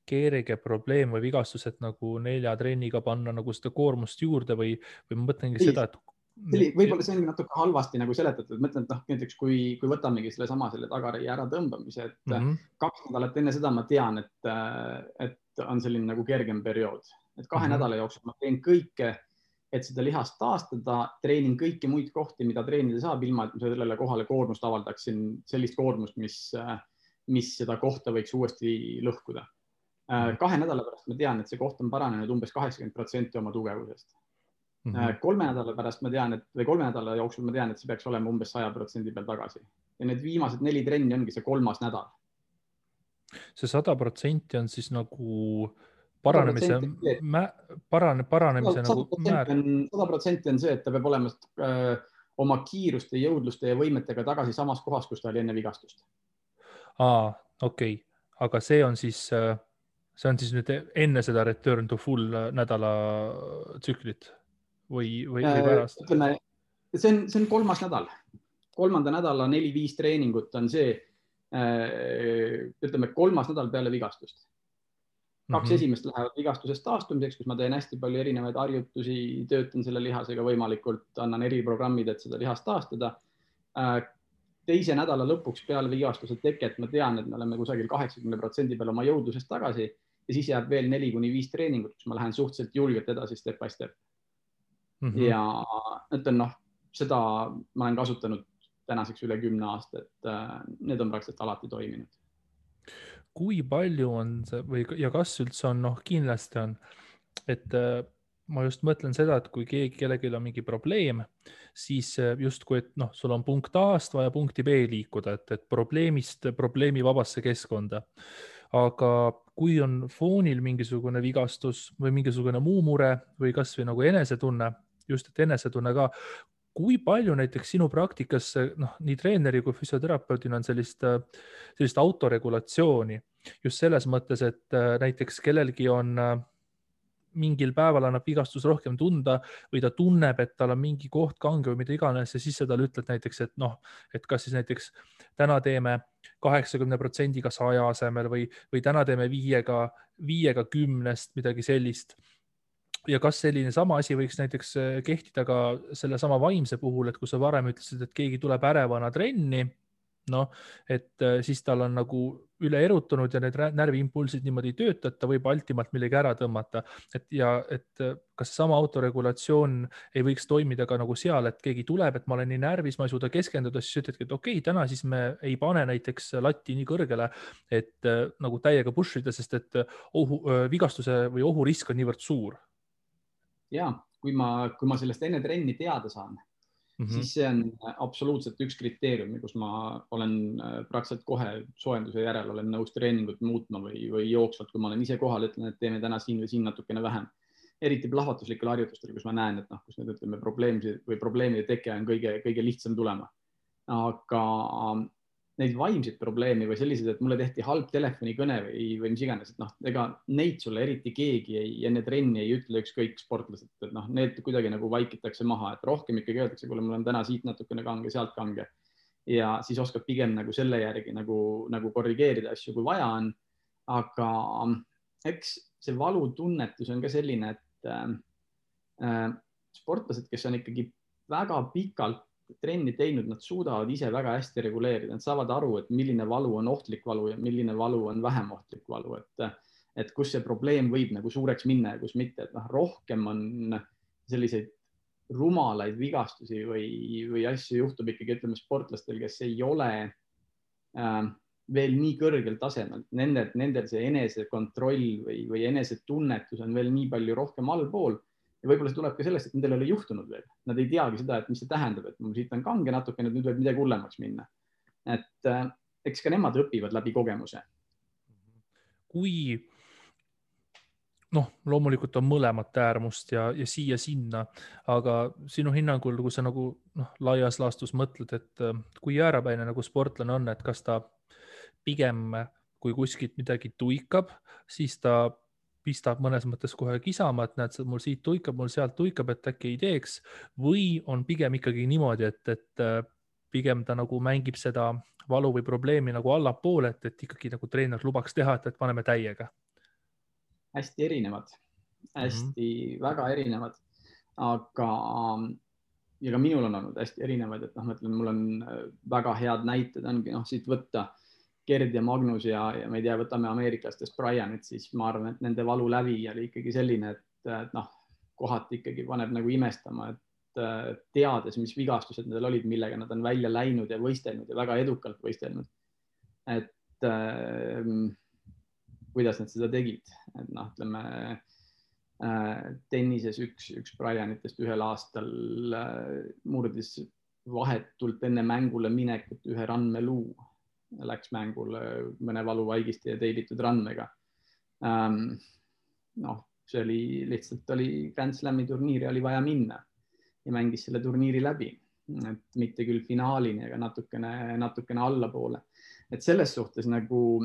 kerge probleem või vigastus, et nagu 4 trenniga panna nagu seda koormust juurde või ma mõtlengi seda, et võib-olla see ongi natuke halvasti nagu seletatud, mõtlen, et näiteks kui võtamegi selle tagareie ära tõmbamise, et 2 nädalat enne seda ma tean, et on selline nagu kergem periood, et 2 nädala jooksul ma teen kõike, et seda lihast taastada, treenin kõiki muid kohti, mida treenida saab, ilma et ma sellele kohale koormust avaldaksin, sellist koormust, mis seda kohta võiks uuesti lõhkuda. 2 nädala pärast ma tean, et see koht on paranenud umbes 80% oma tugevusest. 3 nädala pärast ma tean, või 3 nädala jooksul ma tean, et see peaks olema umbes 100% peal tagasi. Ja need viimased 4 trenni ongi see 3. nädal. See 100% on siis nagu paranemise nagu määr. 100% on see, et ta peab olema oma kiiruste, jõudluste ja võimetega tagasi samas kohas, kus ta oli enne vigastust. Okei. Aga see on siis nüüd enne seda return to full nädala tsüklit või pärast? Ütleme, see on 3. nädal. 3. nädala 4-5 treeningut on see, ütleme 3. nädal peale vigastust. 2 esimest lähevad vigastusest taastumiseks, kus ma teen hästi palju erinevaid harjutusi, töötan selle lihasega võimalikult, annan eriprogrammid, et seda lihast taastada. 2. nädala lõpuks peale vigastuse teket ma tean, et me oleme kusagil 80% peal oma jõudlusest tagasi ja siis jääb veel 4-5 treeningut, kus ma lähen suhteliselt julgelt edasi step by step. Ja ütlen, seda ma olen kasutanud tänaseks üle 10 aasta, et need on praktiliselt alati toiminud. Kui palju on see ja kas üldse on, kindlasti on, et ma just mõtlen seda, et kui kellelgi on mingi probleem, siis justkui, et sul on punkt A-st vaja punkti B liikuda, et probleemi vabasse keskkonda. Aga kui on foonil mingisugune vigastus või mingisugune muu mure või kas või nagu enesetunne, just et enesetunne ka, kui palju näiteks sinu praktikas nii treeneri kui füsioterapeudina on sellist autoregulatsiooni just selles mõttes, et näiteks kellelgi on mingil päeval annab vigastus rohkem tunda või ta tunneb, et tal on mingi koht kange või mida iganes ja siis sa talle ütled näiteks, et kas siis näiteks täna teeme 80%-ga 100 asemel või täna teeme 5-ga 10-st midagi sellist. Ja kas selline sama asi võiks näiteks kehtida ka selle sama vaimse puhul, et kui sa varem ütlesid, et keegi tuleb ärevana trenni noh, et siis tal on nagu üle erutunud ja need närviimpulsid niimoodi ei tööta, et ta võib altimalt millegi ära tõmmata. Et kas sama autoregulatsioon ei võiks toimida ka nagu seal, et keegi tuleb, et ma olen nii närvis, ma ei suuda keskenduda, siis ütledki, et okei, täna siis me ei pane näiteks latti nii kõrgele, et nagu täiega push ida, sest et vigastuse või ohurisk on niivõrd suur. Ja, kui ma sellest enne trenni teada saan, siis see on absoluutselt üks kriteerium, kus ma olen praktiliselt kohe soojenduse järel olen nõus treeningut muutma või jooksvalt, kui ma olen ise kohal, ütlen, et teeme täna siin või siin natukene vähem. Eriti plahvatuslikel harjutustel, kus ma näen, et kus need ütleme probleemide teke on kõige lihtsam tulema. Aga neid vaimseid probleeme või sellised, et mulle tehti halb telefonikõne või mis iganes, et ega neid sulle eriti keegi enne trenni ei ütle, ükskõik sportlased, et need kuidagi nagu vaikitakse maha, et rohkem ikkagi öeldakse, kuule, mul on täna siit natukene kange, sealt kange. Ja siis oskab pigem nagu selle järgi nagu korrigeerida asju, kui vaja on. Aga eks see valutunnetus on ka selline, et sportlased, kes on ikkagi väga pikalt trenni teinud, nad suudavad ise väga hästi reguleerida, nad saavad aru, et milline valu on ohtlik valu ja milline valu on vähem ohtlik valu, et kus see probleem võib nagu suureks minna ja kus mitte, et rohkem on selliseid rumalaid vigastusi või asju juhtub ikkagi, ütleme, sportlastel, kes ei ole veel nii kõrgel tasemel, nendel see enesekontroll või enesetunnetus on veel nii palju rohkem allpool. Ja võib-olla see tuleb ka sellest, et nendel ei ole juhtunud veel. Nad ei teagi seda, et mis see tähendab, et mul siit on kange natukene, nüüd võib midagi hullemaks minna. Et eks ka nemad õpivad läbi kogemuse. Kui loomulikult on mõlemat äärmust ja siia-sinna, aga sinu hinnangul, kui sa nagu laias laastus mõtled, et kui jäärapäine nagu sportlane on, et kas ta pigem, kui kuskilt midagi tuikab, siis ta pistab mõnes mõttes kohe kisama, et näed, mul siit tuikab, mul sealt tuikab, et äkki ei teeks, või on pigem ikkagi niimoodi, et pigem ta nagu mängib seda valu või probleemi nagu allapoole, et ikkagi nagu treener lubaks teha, et paneme täiega. Hästi erinevad, väga erinevad, aga ja ka minul on olnud hästi erinevad, et ma ütlen, mul on väga head näited ongi siit võtta Gerd ja Magnus ja ma ei tea, võtame ameeriklastest Brianit, siis ma arvan, et nende valu läbi oli ikkagi selline, et kohati ikkagi paneb nagu imestama, et teades, mis vigastused nendel olid, millega nad on välja läinud ja võistelnud ja väga edukalt võistelnud. Et kuidas nad seda tegid, et ütleme tennises üks Brianitest ühel aastal murdis vahetult enne mängule minekut ühe randmeluu. Läks mängule mõne valuvaigisti ja teibitud randmega. See oli lihtsalt Grand Slami turniiri oli vaja minna ja mängis selle turniiri läbi, et mitte küll finaalini, aga natukene allapoole. Et selles suhtes nagu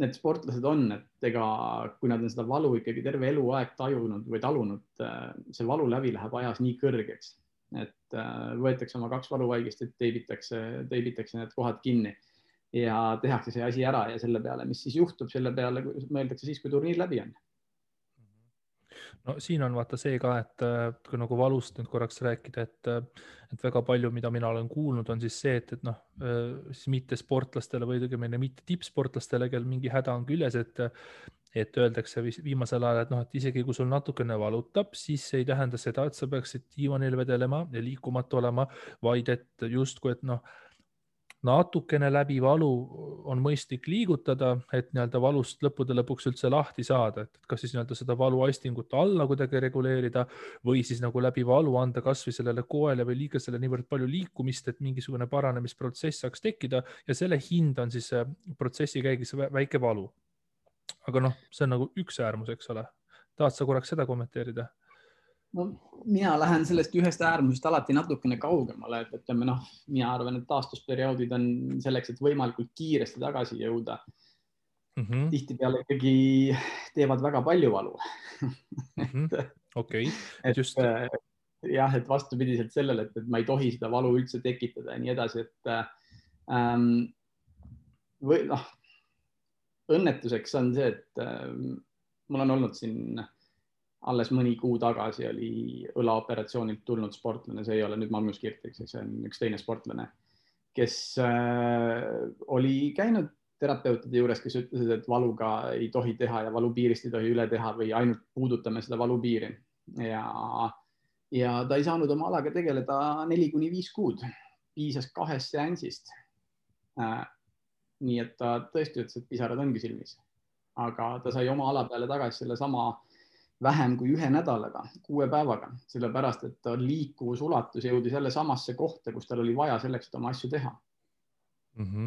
need sportlased on, et ega kui nad on seda valu ikkagi terve eluaeg tajunud või talunud, see valu läbi läheb ajas nii kõrgeks, et võetakse oma 2 valuvaigist, et teibitakse need kohad kinni. Ja tehakse see asi ära ja selle peale, mis siis juhtub, selle peale mõeldakse siis, kui turniir läbi on. No siin on vaata see ka, et kui nagu valust nüüd korraks rääkida, et väga palju, mida mina olen kuulnud, on siis see, et siis mitte sportlastele või mitte tippsportlastele, kel mingi häda on küljes, et öeldakse viimasel ajal, et isegi kui sul natukene valutab, siis ei tähenda seda, et sa peaksid diivanil vedelema ja liikumatu olema, vaid et justkui, et natukene läbi valu on mõistlik liigutada, et valust lõppude lõpuks üldse lahti saada, et kas siis seda valuaistingut alla kuidagi reguleerida või siis nagu läbi valu anda kas või sellele koele või liigesele niivõrd palju liikumist, et mingisugune paranemisprotsess saaks tekkida ja selle hind on siis protsessi käigus väike valu. Aga see on nagu üks äärmus, eks ole. Tahad sa korraks seda kommenteerida? No, mina lähen sellest ühest äärmusest alati natukene kaugemale, et ütleme, mina arvan, et taastusperioodid on selleks, et võimalikult kiiresti tagasi jõuda. Tihtipeale ikkagi teevad väga palju valu. Okei. Jah, et vastupidiselt sellele, et ma ei tohi seda valu üldse tekitada ja nii edasi, et õnnetuseks on see, et mul on olnud siin alles mõni kuu tagasi oli õlaoperatsioonilt tulnud sportlane, see ei ole nüüd Magnus Kirtik, see on üks teine sportlane, kes oli käinud terapeutide juures, kes ütlesid, et valuga ei tohi teha ja valupiirist ei tohi üle teha või ainult puudutame seda valupiiri. Ja ta ei saanud oma alaga tegeleda 4-5 kuud. Piisas 2 seansist. Nii et ta tõesti ütles, et pisarad ongi silmis. Aga ta sai oma ala peale tagasi selle sama vähem kui 1 nädalaga, 6 päevaga, sellepärast, et ta liikuvusulatus jõudis jälle samasse kohta, kus tal oli vaja selleks, et oma asju teha.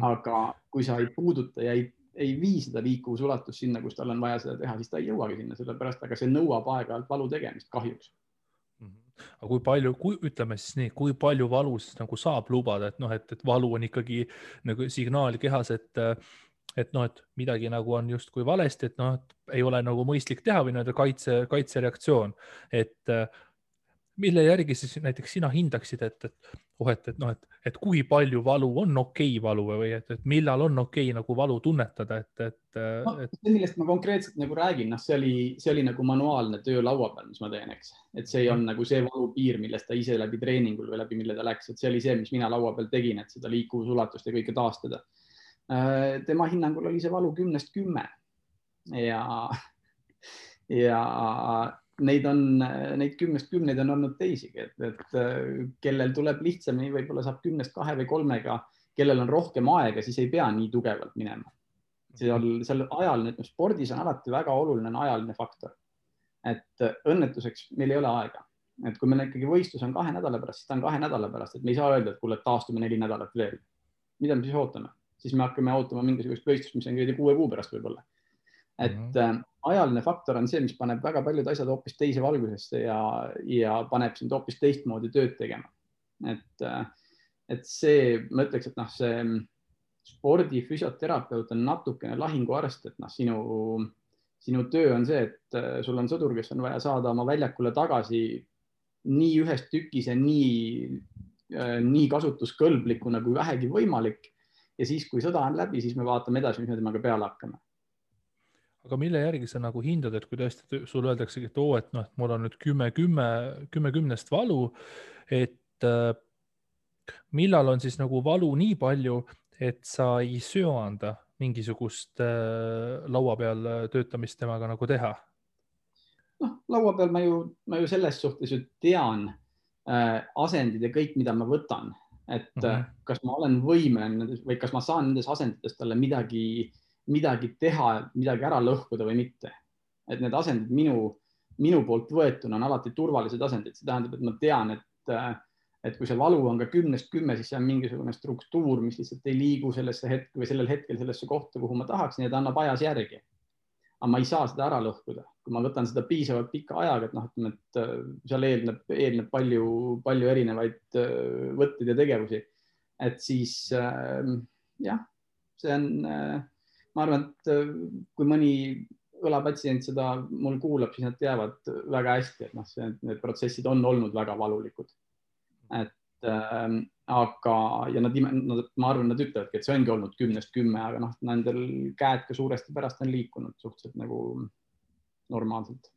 Aga kui sa ei puuduta ja ei vii seda liikuvusulatust sinna, kus tal on vaja seda teha, siis ta ei jõuagi sinna, sellepärast, aga see nõuab aeg-ajalt valu tegemist kahjuks. Aga kui palju, ütleme siis nii, kui palju valu siis nagu saab lubada, et valu on ikkagi nagu signaal kehas, et midagi nagu on justkui valesti, et ei ole nagu mõistlik teha või kaitsereaktsioon, et mille järgi siis näiteks sina hindaksid, et kui palju valu on okei valu või et millal on okei nagu valu tunnetada, see, millest ma konkreetselt nagu räägin, see oli nagu manuaalne töö laua peal, mis ma teen, eks, et see ei on nagu see valupiir, millest ta ise läbi treeningul või läbi mille ta läks, et see oli see, mis mina laua peal tegin, et seda liikuvusulatust ja kõike taastada. Tema hinnangul oli see valu 10-10 ja neid 10-10 on olnud teisigi, et kellel tuleb lihtsamini, võib-olla saab 10-2 või 3-ga, kellel on rohkem aega, siis ei pea nii tugevalt minema. Seal ajaline, spordis on alati väga oluline ajaline faktor, et õnnetuseks meil ei ole aega. Et kui meil ikkagi võistlus on 2 nädala pärast, siis ta on 2 nädala pärast, et me ei saa öelda, et kuule, taastume 4 nädalat veel. Mida me siis ootame? Siis me hakkame ootama mingisugust võistlust, mis on 6 kuu pärast võib-olla. Et ajaline faktor on see, mis paneb väga paljud asjad hoopis teise valgusesse ja paneb sind hoopis teistmoodi tööd tegema. Et see, ma ütleks, et see spordifüsioterapeut on natukene lahinguarst, et sinu töö on see, et sul on sõdur, kes on vaja saada oma väljakule tagasi nii ühes tükis ja nii kasutuskõlblikuna kui vähegi võimalik. Ja siis, kui sõda on läbi, siis me vaatame edasi, mis me temaga peale hakkame. Aga mille järgi sa nagu hindad, et kui tõesti sul öeldaksegi, et mul on nüüd 10-10 valu, et millal on siis nagu valu nii palju, et sa ei söanda mingisugust laua peal töötamist temaga nagu teha? Laua peal ma ju selles suhtes ju tean asendid ja kõik, mida ma võtan, et kas ma olen võimeline või kas ma saan nendes asendites talle midagi teha, midagi ära lõhkuda või mitte. Et need asendid minu poolt võetuna on alati turvalised asendid. See tähendab, et ma tean, et kui see valu on ka 10-10, siis see on mingisugune struktuur, mis lihtsalt ei liigu sellel hetkel sellesse kohta, kuhu ma tahaksin, ja ta annab ajas järgi. Aga ma ei saa seda ära lõhkuda. Kui ma võtan seda piisavalt pikka ajaga, et seal eelneb palju erinevaid võtteid ja tegevusi. Et siis jah, see on... Ma arvan, et kui mõni õlapatsient seda mul kuulab, siis nad teavad väga hästi, et need protsessid on olnud väga valulikud. Aga ma arvan, nad ütlevadki, et see ongi olnud 10-10, aga nendel käed ka suuresti pärast on liikunud suhteliselt nagu normaalselt.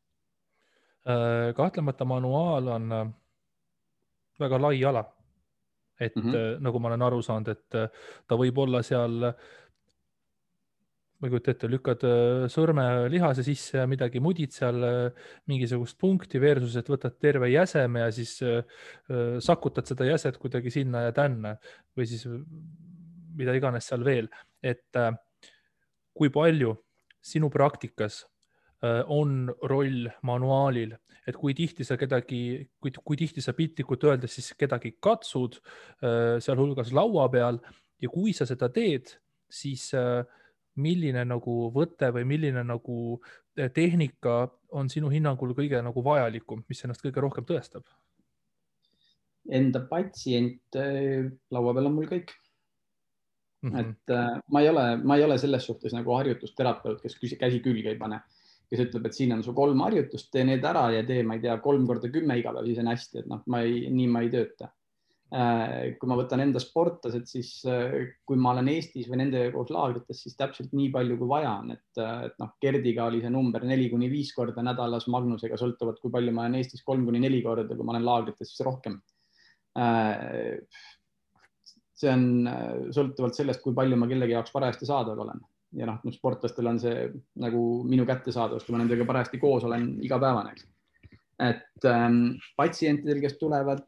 Kahtlemata manuaal on väga lai ala. Et nagu ma olen aru saanud, et ta võib olla seal... Ma kujutan ette, lükkad sõrme lihase sisse ja midagi mudid seal mingisugust punkti versus, et võtad terve jäseme ja siis sakutad seda jäset kuidagi sinna ja tänna või siis mida iganes seal veel. Et kui palju sinu praktikas on roll manuaalil, et kui tihti sa piltlikult öeldes siis kedagi katsud sealhulgas laua peal ja kui sa seda teed, siis milline nagu võte või milline nagu tehnika on sinu hinnangul kõige nagu vajalikum, mis ennast kõige rohkem tõestab? Enda patsient laua peal on mul kõik. Et ma ei ole selles suhtes nagu harjutusterapeut, kes käsi külge ei pane, kes ütleb, et siin on su 3 harjutust, tee need ära ja tee, ma ei tea, 3x10 iga päev, siis on hästi, et nii ma ei tööta. Kui ma võtan enda sportlased, siis kui ma olen Eestis või nende koos laagrites, siis täpselt nii palju kui vaja on, et Gerdiga oli see number 4-5 korda nädalas, Magnusega sõltuvad, kui palju ma olen Eestis 3-4 korda, kui ma olen laagrites, siis rohkem. see on sõltuvalt sellest, kui palju ma kellegi jaoks parajasti saadaval olen. Ja noh, sportlastel on see nagu minu kättesaadavus, kui ma nendega parajasti koos olen igapäevane. Et patsientidel, kes tulevad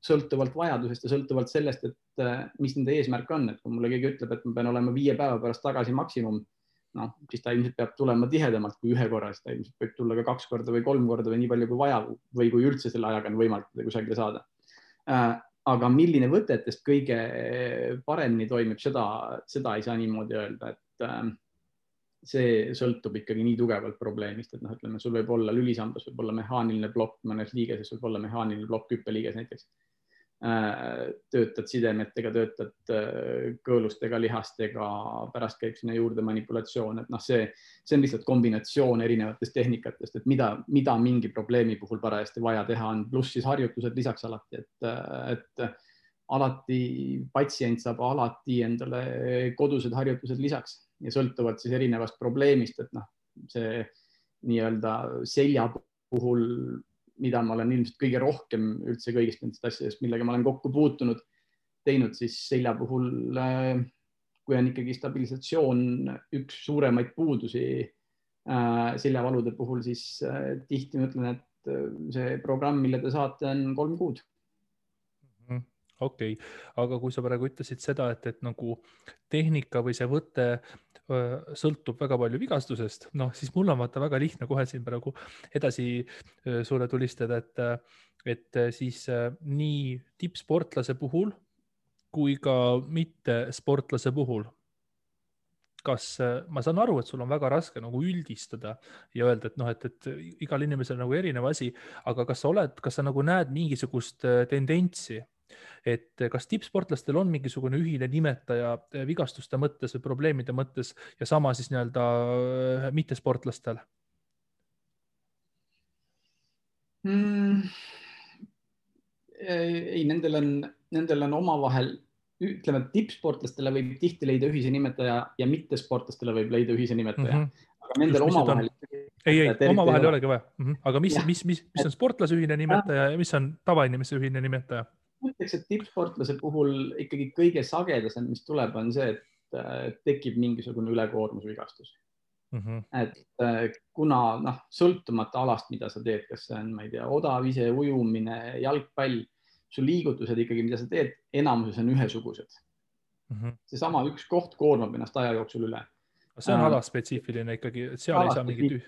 sõltuvalt vajadusest ja sõltuvalt sellest, et mis nende eesmärk on, et kui mulle keegi ütleb, et ma pean olema 5 päeva pärast tagasi maksimum, noh, siis ta ilmselt peab tulema tihedamalt kui 1 korra, siis ta ilmselt võib tulla ka 2 korda või 3 korda või nii palju kui vaja või kui üldse selle ajaga on võimalik kusagile saada. Aga milline võtetest kõige paremini toimib, seda ei saa niimoodi öelda, et see sõltub ikkagi nii tugevalt probleemist, et noh, ütleme, sul võib olla lülisambas, võib olla mehaaniline plokk, mõnes liigeses võib olla mehaaniline plokk hüppeliiges näiteks. Töötad sidemetega, töötad kõõlustega, lihastega, pärast käib sinna juurde manipulatsioon, et noh, see on lihtsalt kombinatsioon erinevatest tehnikatest, et mida mingi probleemi puhul parajasti vaja teha on, pluss siis harjutused lisaks alati, et alati patsient saab alati endale kodused harjutused lisaks ja sõltuvalt siis erinevast probleemist, et noh, see nii-öelda selja puhul, mida ma olen ilmselt kõige rohkem üldse kõigist nendest asjadest, millega ma olen kokku puutunud, teinud siis selja puhul, kui on ikkagi stabilisatsioon üks suuremaid puudusi seljavalude puhul, siis tihti ma ütlen, et see programm, mille te saate, on 3 kuud. Okei, aga kui sa praegu ütlesid seda, et nagu tehnika või see võte sõltub väga palju vigastusest, noh, siis mul on vaata väga lihtne kohe siin praegu edasi sulle tulistada, et siis nii tippsportlase puhul kui ka mitte sportlase puhul. Kas ma saan aru, et sul on väga raske nagu üldistada ja öelda, et noh, et igal inimesel on nagu erinev asi, aga kas sa nagu näed mingisugust tendentsi, et kas tippsportlastel on mingisugune ühine nimetaja vigastuste mõttes või probleemide mõttes ja sama siis nii-öelda mittesportlastel? Ei, nendel on omavahel, ütleme, et tippsportlastele võib tihti leida ühise nimetaja ja mittesportlastele võib leida ühise nimetaja. Aga nendel omavahel... Ei, omavahel ei olegi vaja. Aga mis on sportlase ühine nimetaja ja mis on tavainimese ühine nimetaja? Mõtleks, et tippsportlase puhul ikkagi kõige sagedasem, mis tuleb, on see, et tekib mingisugune ülekoormusvigastus. Et kuna sõltumata alast, mida sa teed, kas see on, ma ei tea, odav ise, ujumine, jalgpall, su liigutused ikkagi, mida sa teed, enamuses on ühesugused. Seesama üks koht koormab ennast aja jooksul üle. See on alaspetsiifiline ikkagi, et seal ei saa mingit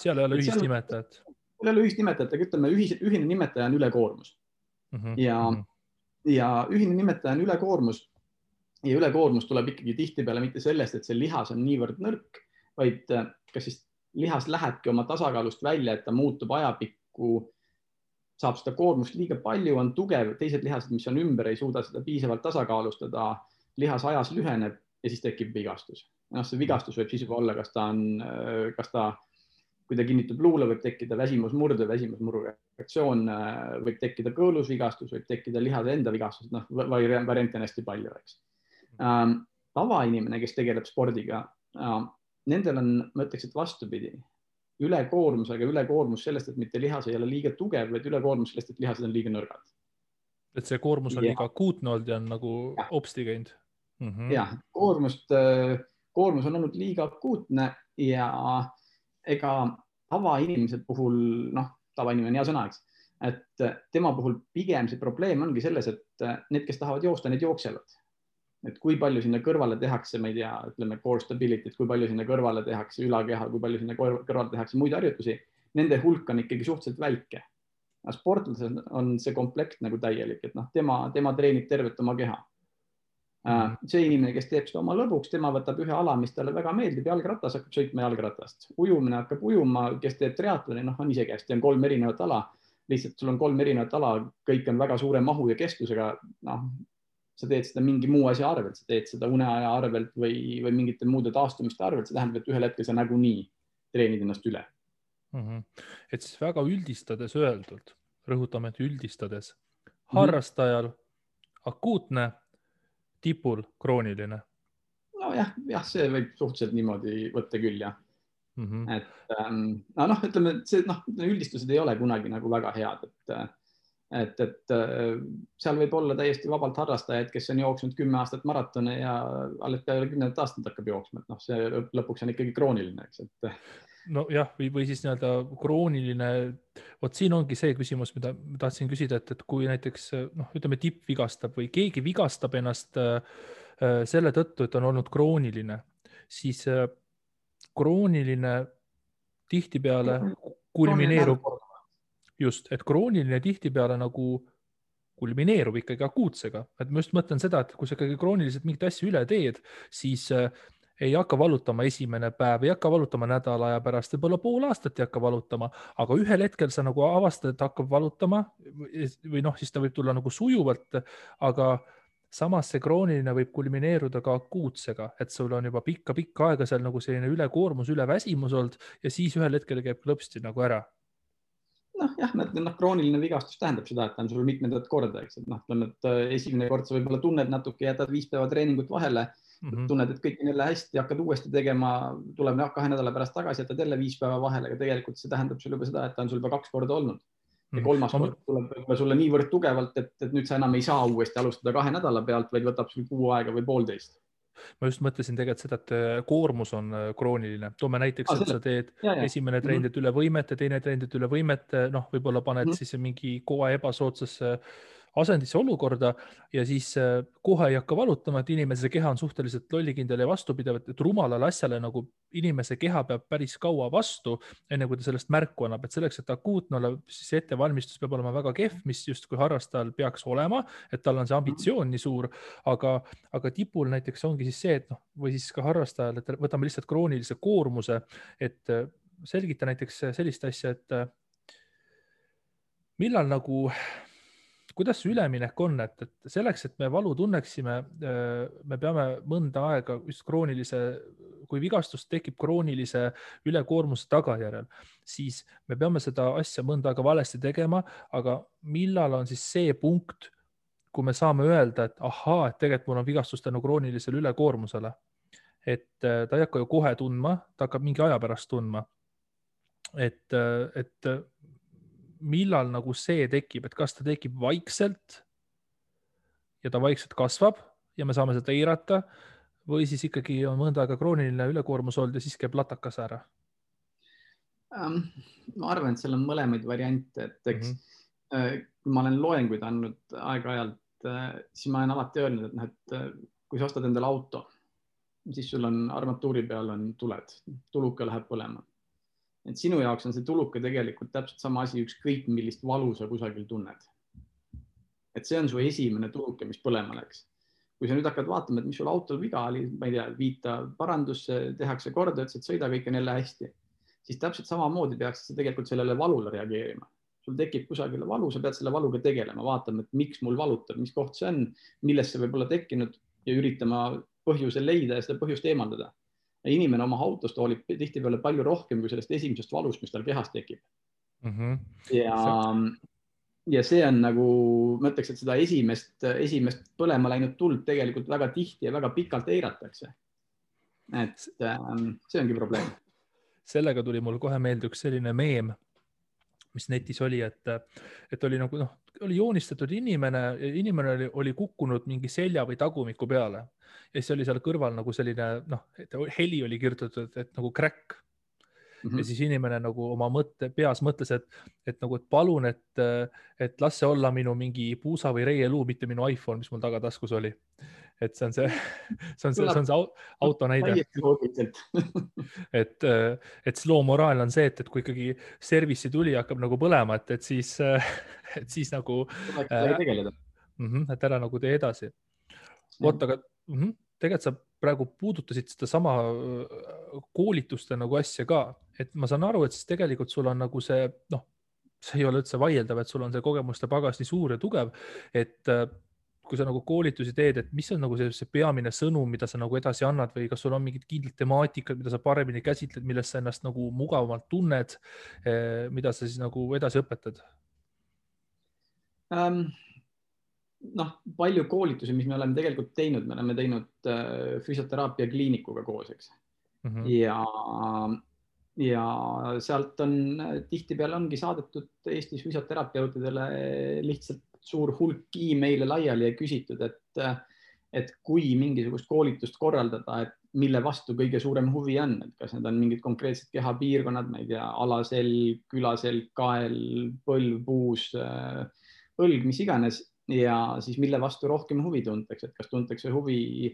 seal ei ole ühist nimetajat. Seal ei ole ühist nimetajat, aga ütleme, ühine nimetaja on ülekoormus. Ja ühine nimetaja on ülekoormus ja ülekoormus tuleb ikkagi tihtipeale mitte sellest, et see lihas on niivõrd nõrk, vaid kas siis lihas lähebki oma tasakaalust välja, et ta muutub ajapikku, saab seda koormust liiga palju, on tugev, teised lihased, mis on ümber, ei suuda seda piisavalt tasakaalustada, lihas ajas lüheneb ja siis tekib vigastus. See vigastus võib siis juba olla, kas ta kui ta kinnitub luule, võib tekkida väsimusmurdu, väsimusmuru reaktsioon, võib tekkida kõõlusvigastus, võib tekkida lihade enda vigastus, variante on hästi palju, eks. Tavainimene, kes tegeleb spordiga, nendel on, ma ütleks, et vastupidi, ülekoormus, aga ülekoormus sellest, et mitte lihas ei ole liiga tugev, vaid ülekoormus sellest, et lihased on liiga nõrgad. Et see koormus on liiga akuutne olnud ja on nagu hopsti käinud. Jah, koormus on olnud liiga akuutne ja ega tavainimese puhul, tavainimene on hea sõna, eks, et tema puhul pigem see probleem ongi selles, et need, kes tahavad joosta, need jooksevad. Et kui palju sinna kõrvale tehakse, ma ei tea, ütleme core stability, kui palju sinna kõrvale tehakse ülakeha, kui palju sinna kõrvale tehakse muid harjutusi, nende hulk on ikkagi suhteliselt väike. Sportlasel on see komplekt nagu täielik, et tema treenib tervet oma keha. See inimene, kes teeb seda oma lõbuks, tema võtab ühe ala, mis talle väga meeldib, jalgratas hakkab sõitma jalgratast. Ujumine hakkab ujuma, kes teeb triatloni, on isegi hästi, on 3 erinevat ala. Lihtsalt sul on 3 erinevat ala, kõik on väga suure mahu ja kestusega. Sa teed seda mingi muu asja arvelt, sa teed seda uneaja arvelt või mingite muude taastumiste arvelt. See tähendab, et ühel hetkel sa nagunii treenid ennast üle. Et siis väga üldistades öeldult, rõhutame, et üldistades, harrastajal akuutne, tipul krooniline. Jah, see võib suhteliselt niimoodi võtta küll, jah. Et ütleme, üldistused ei ole kunagi nagu väga head, et seal võib olla täiesti vabalt harrastajaid, kes on jooksnud 10 aastat maratone ja alles peale 10 aastat hakkab jooksma, et noh, see lõpuks on ikkagi krooniline, eks, et. Nojah, või siis nii-öelda krooniline, vot siin ongi see küsimus, mida ma tahtsin küsida, et kui näiteks noh, ütleme tipp vigastab või keegi vigastab ennast selle tõttu, et on olnud krooniline, siis krooniline tihtipeale kulmineerub, just, et krooniline tihtipeale nagu kulmineerub ikkagi akuutsega, et ma just mõtlen seda, et kui sa ikkagi krooniliselt mingit asja üle teed, siis ei hakka valutama esimene päev, ei hakka valutama nädala aja pärast, võib-olla pool aastat ei hakka valutama, aga ühel hetkel sa nagu avastad, et hakkab valutama või noh, siis ta võib tulla nagu sujuvalt, aga samas see krooniline võib kulmineeruda ka akuutsega, et sul on juba pikka aega seal nagu selline ülekoormus, üleväsimus olnud ja siis ühel hetkel käib klõpsti nagu ära. Jah, krooniline vigastus tähendab seda, et ta on sul mitmendat korda, eks, et noh, et esimene kord sa võib-olla tunned natuke, jätad 5 päeva treeningut vahele, tunned, et kõik on jälle hästi, hakkad uuesti tegema, tuleb 2 nädala pärast tagasi, jätad jälle 5 päeva vahele, aga tegelikult see tähendab sul juba seda, et ta on sul juba 2 korda olnud. Ja 3. kord tuleb sulle niivõrd tugevalt, et nüüd sa enam ei saa uuesti alustada 2 nädala pealt, vaid võtab sul kuu aega või 1,5. Ma just mõtlesin tegelikult seda, et koormus on krooniline. Toome näiteks, et sa teed esimene treenid üle võimete, teine treenid üle võimete, noh, võib-olla paned siis mingi kohe ebasoodsasse asendisse olukorda ja siis kohe ei hakka valutama, et inimese keha on suhteliselt lollikindel ja vastupidav, et rumalale asjale nagu inimese keha peab päris kaua vastu, enne kui ta sellest märku annab, et selleks, et akuutne olla, siis ettevalmistus peab olema väga kehv, mis justkui harrastajal peaks olema, et tal on see ambitsioon nii suur, aga tipul näiteks ongi siis see, et noh, või siis ka harrastajal, et võtame lihtsalt kroonilise koormuse, et selgita näiteks sellist asja, et millal nagu kuidas see üleminek on, et selleks, et me valu tunneksime, me peame mõnda aega just kroonilise, kui vigastus tekib kroonilise ülekoormuse tagajärjel, siis me peame seda asja mõnda aega valesti tegema, aga millal on siis see punkt, kui me saame öelda, et ahaa, et tegelikult mul on vigastus tänu kroonilisele ülekoormusele, et ta ei hakka ju kohe tundma, ta hakkab mingi aja pärast tundma, et millal nagu see tekib, et kas ta tekib vaikselt ja ta vaikselt kasvab ja me saame seda eirata või siis ikkagi on mõnda aega krooniline ülekoormus olnud ja siis käib latakas ära? Ma arvan, et seal on mõlemaid variante, et eks kui ma olen loenguid andnud aeg-ajalt, siis ma olen alati öelnud, et kui sa ostad endale auto, siis sul on armatuuri peal on tuled, tuluka läheb põlema. Et sinu jaoks on see tuluke tegelikult täpselt sama asi, ükskõik millist valu sa kusagil tunned. Et see on su esimene tuluke, mis põlema läks. Kui sa nüüd hakkad vaatama, et mis sul autol viga oli, ma ei tea, viita parandusse, tehakse korda, et sõida kõik on jälle hästi, siis täpselt samamoodi peaks sa tegelikult sellele valule reageerima. Sul tekib kusagile valu, sa pead selle valuga tegelema, vaatama, et miks mul valutab, mis koht see on, millest see võib olla tekkinud ja üritama põhjuse leida ja seda põhjust eemaldada. Inimene oma autost hoolib tihtipeale palju rohkem kui sellest esimesest valust, mis tal kehas tekib. Ja see on nagu, ma ütleks, et seda esimest põlema läinud tuld tegelikult väga tihti ja väga pikalt eiratakse. Et see ongi probleem. Sellega tuli mul kohe meelde üks selline meem, mis netis oli, et oli nagu oli joonistatud inimene oli kukkunud mingi selja või tagumiku peale ja siis oli seal kõrval nagu selline, heli oli kirjutatud, et nagu crack. Ja siis inimene nagu oma peas mõtles, et palun, et las see olla minu mingi puusa või reieluu, mitte minu iPhone, mis mul tagataskus oli. Et see on see auto näide. Et slow moraal on see, et kui ikkagi service'i tuli hakkab nagu põlema, et siis nagu et ära nagu tee edasi. Oota, aga tegelikult sa praegu puudutasid seda sama koolituste nagu asja ka, et ma saan aru, et siis tegelikult sul on nagu see, see ei ole üldse vaieldav, et sul on see kogemuste pagas nii suur ja tugev, et kui sa nagu koolitusi teed, et mis on nagu see peamine sõnum, mida sa nagu edasi annad või kas sul on mingid kindlad temaatikad, mida sa paremini käsitled, millest sa ennast nagu mugavamalt tunned, mida sa siis nagu edasi õpetad? Palju koolitusi, mis me oleme tegelikult teinud, me oleme teinud füsioteraapia kliinikuga koos, eks. Ja ja sealt on tihtipeale ongi saadetud Eestis füsioterapeutidele lihtsalt suur hulk emaile laiali ja küsitud, et kui mingisugust koolitust korraldada, et mille vastu kõige suurem huvi on, et kas need on mingid konkreetsed kehapiirkonnad, ma ei tea, alaselg, külaselg, kael, põlv, puus, õlg, mis iganes ja siis mille vastu rohkem huvi tuntakse, et kas tuntakse huvi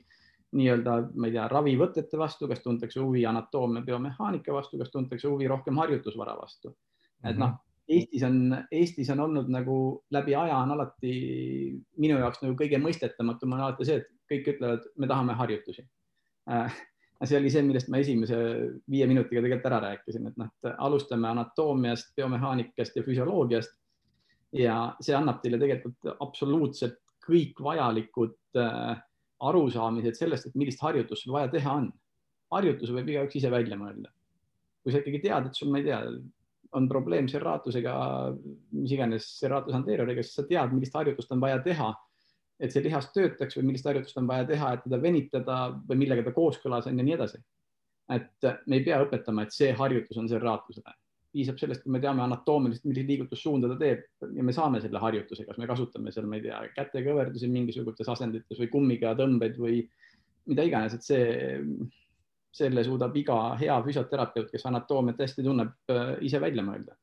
nii-öelda, ma ei tea, ravivõtete vastu, kas tuntakse huvi anatoomia biomehaanika vastu, kas tuntakse huvi rohkem harjutusvara vastu. Et noh, Eestis on olnud nagu läbi aja on alati minu jaoks nagu kõige mõistetatum on alati see, et kõik ütlevad, me tahame harjutusi. See oli see, millest ma esimese 5 minutiga tegelikult ära rääkisin, et noh, alustame anatoomiast, biomehaanikast ja füsioloogiast ja see annab teile tegelikult absoluutselt kõik vajalikud arusaamised sellest, et millist harjutust sul vaja teha on. Harjutuse võib igaüks ise välja mõelda. Kui sa ikkagi tead, et sul, ma ei tea, on probleem serratusega, mis iganes serratus anterioriga, siis sa tead, millist harjutust on vaja teha, et see lihas töötaks või millist harjutust on vaja teha, et teda venitada või millega ta kooskõlas on ja nii edasi. Et me ei pea õpetama, et see harjutus on serratusele. Piisab sellest, kui me teame anatoomiliselt, millist liigutussuunda ta teeb ja me saame selle harjutuse, kas me kasutame seal, ma ei tea, kätekõverdusi mingisugustes asendites või kummiga tõmbeid või mida iganes, et selle suudab iga hea füsioterapeut, kes anatoomiat hästi tunneb, ise välja mõelda.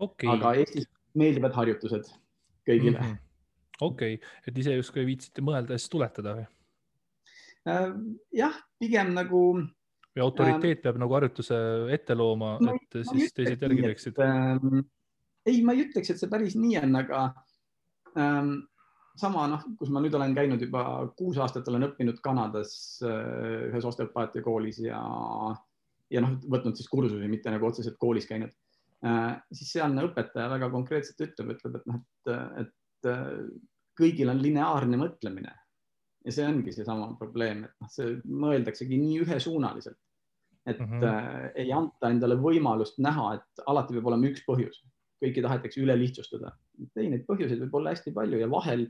Okay. Aga Eestis meeldivad harjutused kõigile. Okei, et ise justkui viitsite mõelda ja siis tuletada või? Jah, pigem nagu... Või autoriteet peab nagu harjutuse ette looma, et siis teised järgi teeksid? Ei, ma ei ütleks, et see päris nii on, aga sama, kus ma nüüd olen käinud juba 6 aastat, olen õppinud Kanadas ühes osteopaatia koolis ja võtnud siis kursusi, mitte nagu otseselt koolis käinud. Siis sealne õpetaja väga konkreetselt ütleb, et kõigil on lineaarne mõtlemine. Ja see ongi see sama probleem, et see mõeldaksegi nii ühesuunaliselt, et ei anta endale võimalust näha, et alati peab olema üks põhjus. Kõiki tahetakse üle lihtsustada. Ei, neid põhjuseid võib olla hästi palju ja vahel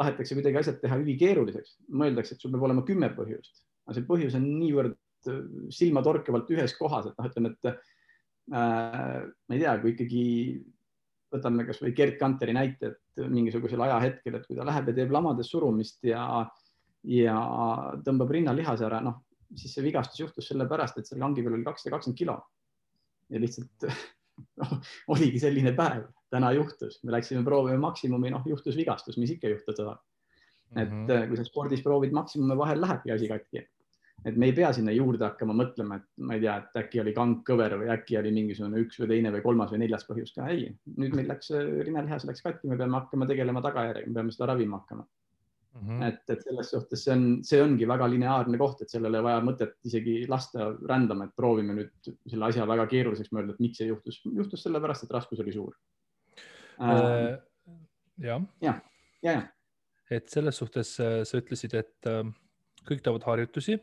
tahetakse kuidagi asjad teha ülikeeruliseks. Mõeldakse, et sul peab olema 10 põhjust. Aga see põhjus on niivõrd silmatorkavalt ühes kohas, et ütleme, et ma ei tea, kui ikkagi võtame kas või Gerd Kanteri näite, et mingisugusel ajahetkel, et kui ta läheb ja teeb lamades surumist ja tõmbab rinnalihase ära, siis see vigastus juhtus selle pärast, et selle kangi peal oli 220 kilo. Ja lihtsalt oligi selline päev. Täna juhtus. Me läksime proovime maksimumi, juhtus vigastus, mis ikka juhtuda. Et kui sa spordis proovid maksimumi, vahel lähebki asi katki. Et me ei pea sinna juurde hakkama mõtlema, et ma ei tea, et äkki oli kang kõver või äkki oli mingisugune 1 või 2 või 3 või 4 põhjus ka. Ei, nüüd meil läks rinnalihas läks katki, me peame hakkama tegelema tagajärjega, me peame seda ravima hakkama. Et selles suhtes see ongi väga lineaarne koht, et sellele vaja mõtet isegi lasta rändama, et proovime nüüd selle asja väga keeruliseks mõelda, et miks see juhtus. Juhtus sellepärast, et raskus oli suur. Ja. Et selles suhtes sa ütlesid, et kõik teevad harjutusi,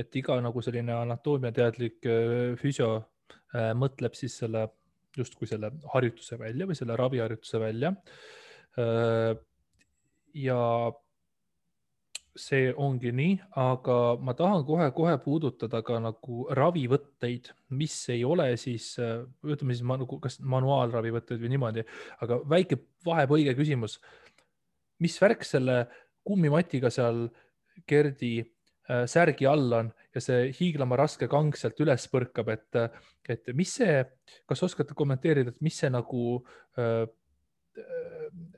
et iga nagu selline anatoomiateadlik füsio mõtleb siis justkui selle harjutuse välja või selle raviharjutuse välja. Ja see ongi nii, aga ma tahan kohe puudutada ka nagu ravivõtteid, mis ei ole siis, ütleme siis kas manuaalravivõtteid või niimoodi, aga väike vahepõige küsimus. Mis värk selle kummimatiga seal Gerdi särgi all on ja see hiiglama raske kang sealt üles põrkab, et mis see, kas oskate kommenteerida, et mis see nagu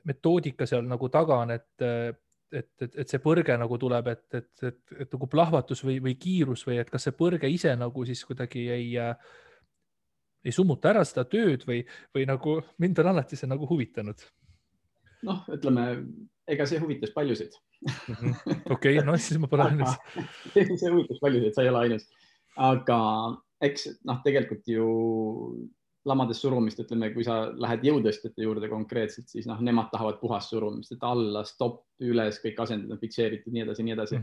metoodika seal nagu taga on, et see põrge nagu tuleb, et nagu plahvatus või kiirus või et kas see põrge ise nagu siis kuidagi ei summuta ära seda tööd või nagu mind on alati see nagu huvitanud. Ütleme, ega see huvitas paljusid. Okei, siis ma pole ainus. See huvitas paljusid, sa ei ole ainus. Aga eks tegelikult ju lamades surumist, ütleme, kui sa lähed jõutõstjate juurde konkreetselt, siis nemad tahavad puhast surumist, et alla, stopp, üles, kõik asendid on fikseeritud, nii edasi.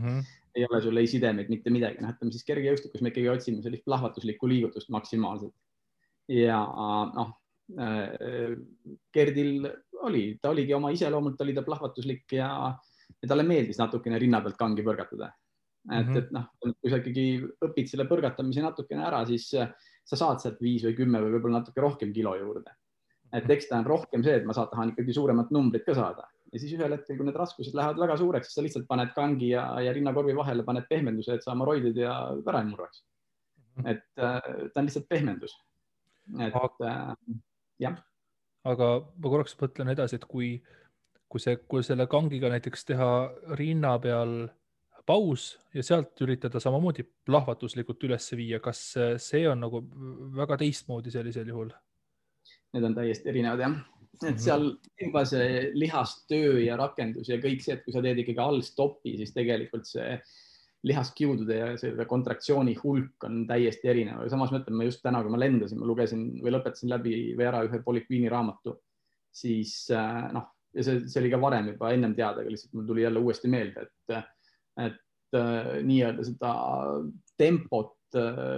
Ei ole sul ei sidemeid, mitte midagi. Ütleme siis kergejõustikus me ikkagi otsime sellist plahvatuslikku liigutust maksimaalselt. Ja Gerdil ta oligi oma iseloomult, oli ta plahvatuslik ja talle meeldis natukene rinna pealt kangi põrgatada. Et kui sa ikkagi õpid selle põrgatamise natukene ära, siis sa saad sealt 5 või 10 või võib-olla natuke rohkem kilo juurde. Et eks ta on rohkem see, et ma tahan ikkagi suuremat numbrit ka saada. Ja siis ühel hetkel, kui need raskused lähevad väga suureks, siis sa lihtsalt paned kangi ja rinnakorvi vahele, paned pehmenduse, et sa hemoroidid ja ära ei murraks. Et ta on lihtsalt pehmendus. Et jah. Aga ma korraks mõtlen edasi, et kui selle kangiga näiteks teha rinna peal paus ja sealt üritada samamoodi plahvatuslikult üles viia, kas see on nagu väga teistmoodi sellisel juhul? Need on täiesti erinevad, jah. Et seal juba see lihastöö ja rakendus ja kõik see, et kui sa teed ikkagi all stopi, siis tegelikult see lihaskiudude ja selle kontraktsiooni hulk on täiesti erinev. Samas mõtlen, ma just täna, kui ma lendasin, ma lugesin või lõpetasin läbi või ära ühe Polikviini raamatu, siis ja see oli ka varem juba ennem teada, aga lihtsalt mul tuli jälle uuesti meelde, et nii-öelda seda tempot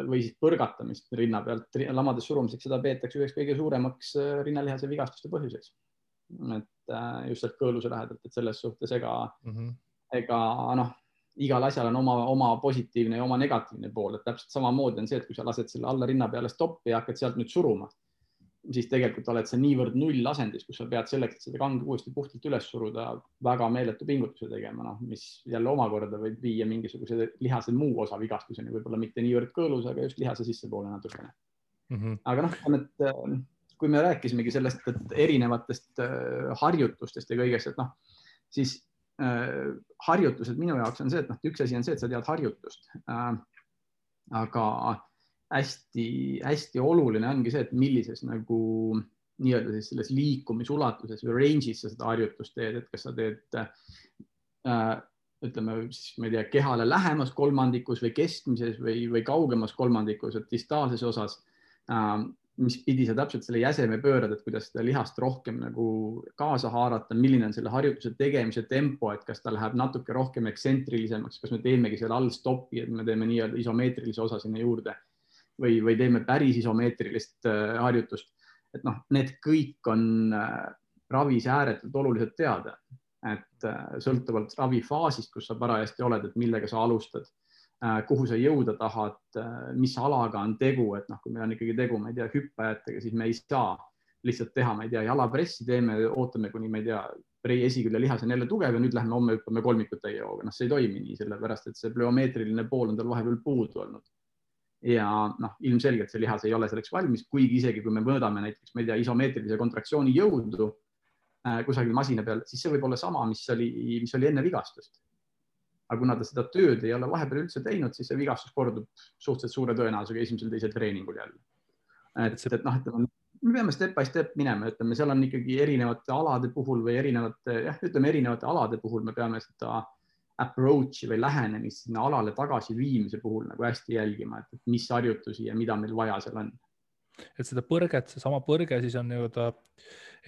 või siis põrgatamist rinna pealt lamades surumiseks, seda peetakse üheks kõige suuremaks rinnalihase vigastuste põhjuseks. Et just sealt kõõluse lähedalt, et selles suhtes ega igal asjal on oma positiivne ja oma negatiivne pool, et täpselt samamoodi on see, et kui sa lased selle alla rinna peale stoppi ja hakkad sealt nüüd suruma, siis tegelikult oled sa niivõrd null asendis, kus sa pead selleks, et seda kangi uuesti puhtalt üles suruda, väga meeletu pingutuse tegema, mis jälle omakorda võib viia mingisuguse lihase muu osa vigastuseni, võib-olla mitte niivõrd kõõlus, aga just lihase sissepoole natukene. Aga kui me rääkisimegi sellest, et erinevatest harjutustest ja kõigest, et siis harjutused minu jaoks on see, et üks asi on see, et sa tead harjutust, aga hästi oluline ongi see, et millises nagu nii-öelda siis selles liikumisulatuses või range'is sa seda harjutust teed, et kas sa teed ütleme siis, ma ei tea, kehale lähemas kolmandikus või keskmises või kaugemas kolmandikus, et distaalses osas, mis pidi sa täpselt selle jäseme pöörad, et kuidas seda lihast rohkem nagu kaasa haarata, milline on selle harjutuse tegemise tempo, et kas ta läheb natuke rohkem eksentrilisemaks, kas me teemegi selle all stopi, et me teeme nii-öelda isomeetrilise osa sinna juurde või teeme päris isomeetrilist harjutust. Et need kõik on ravis ääretult oluliselt teada, et sõltuvalt ravifaasist, kus sa parajasti oled, et millega sa alustad, kuhu sa jõuda tahad, mis alaga on tegu, et kui meil on ikkagi tegu, ma ei tea, hüppajatega, siis me ei saa lihtsalt teha, ma ei tea, jalapressi teeme, ootame kuni, ma ei tea, esikülje lihas on jälle tugev ja nüüd lähme homme hüppame kolmikut täie hooga. See ei toimi nii, sellepärast, et see plöomeetriline pool on tal vahepeal puudu olnud. Ja ilmselgelt see lihas ei ole selleks valmis, kuigi isegi kui me mõõdame näiteks, ma ei tea, isomeetrilise kontraktsiooni jõudu kusagil masina peal, siis see võib olla sama, mis oli enne vigastust. Aga kuna ta seda tööd ei ole vahepeal üldse teinud, siis see vigastus kordub suhteliselt suure tõenäosusega esimesel-teisel treeningul jälle. Me peame step by step minema, ütleme, seal on ikkagi erinevate alade puhul või erinevate alade puhul me peame seda approach'i või lähenemist sinna alale tagasi viimise puhul nagu hästi jälgima, et mis harjutusi ja mida meil vaja seal on. Et seda põrget, see sama põrge siis on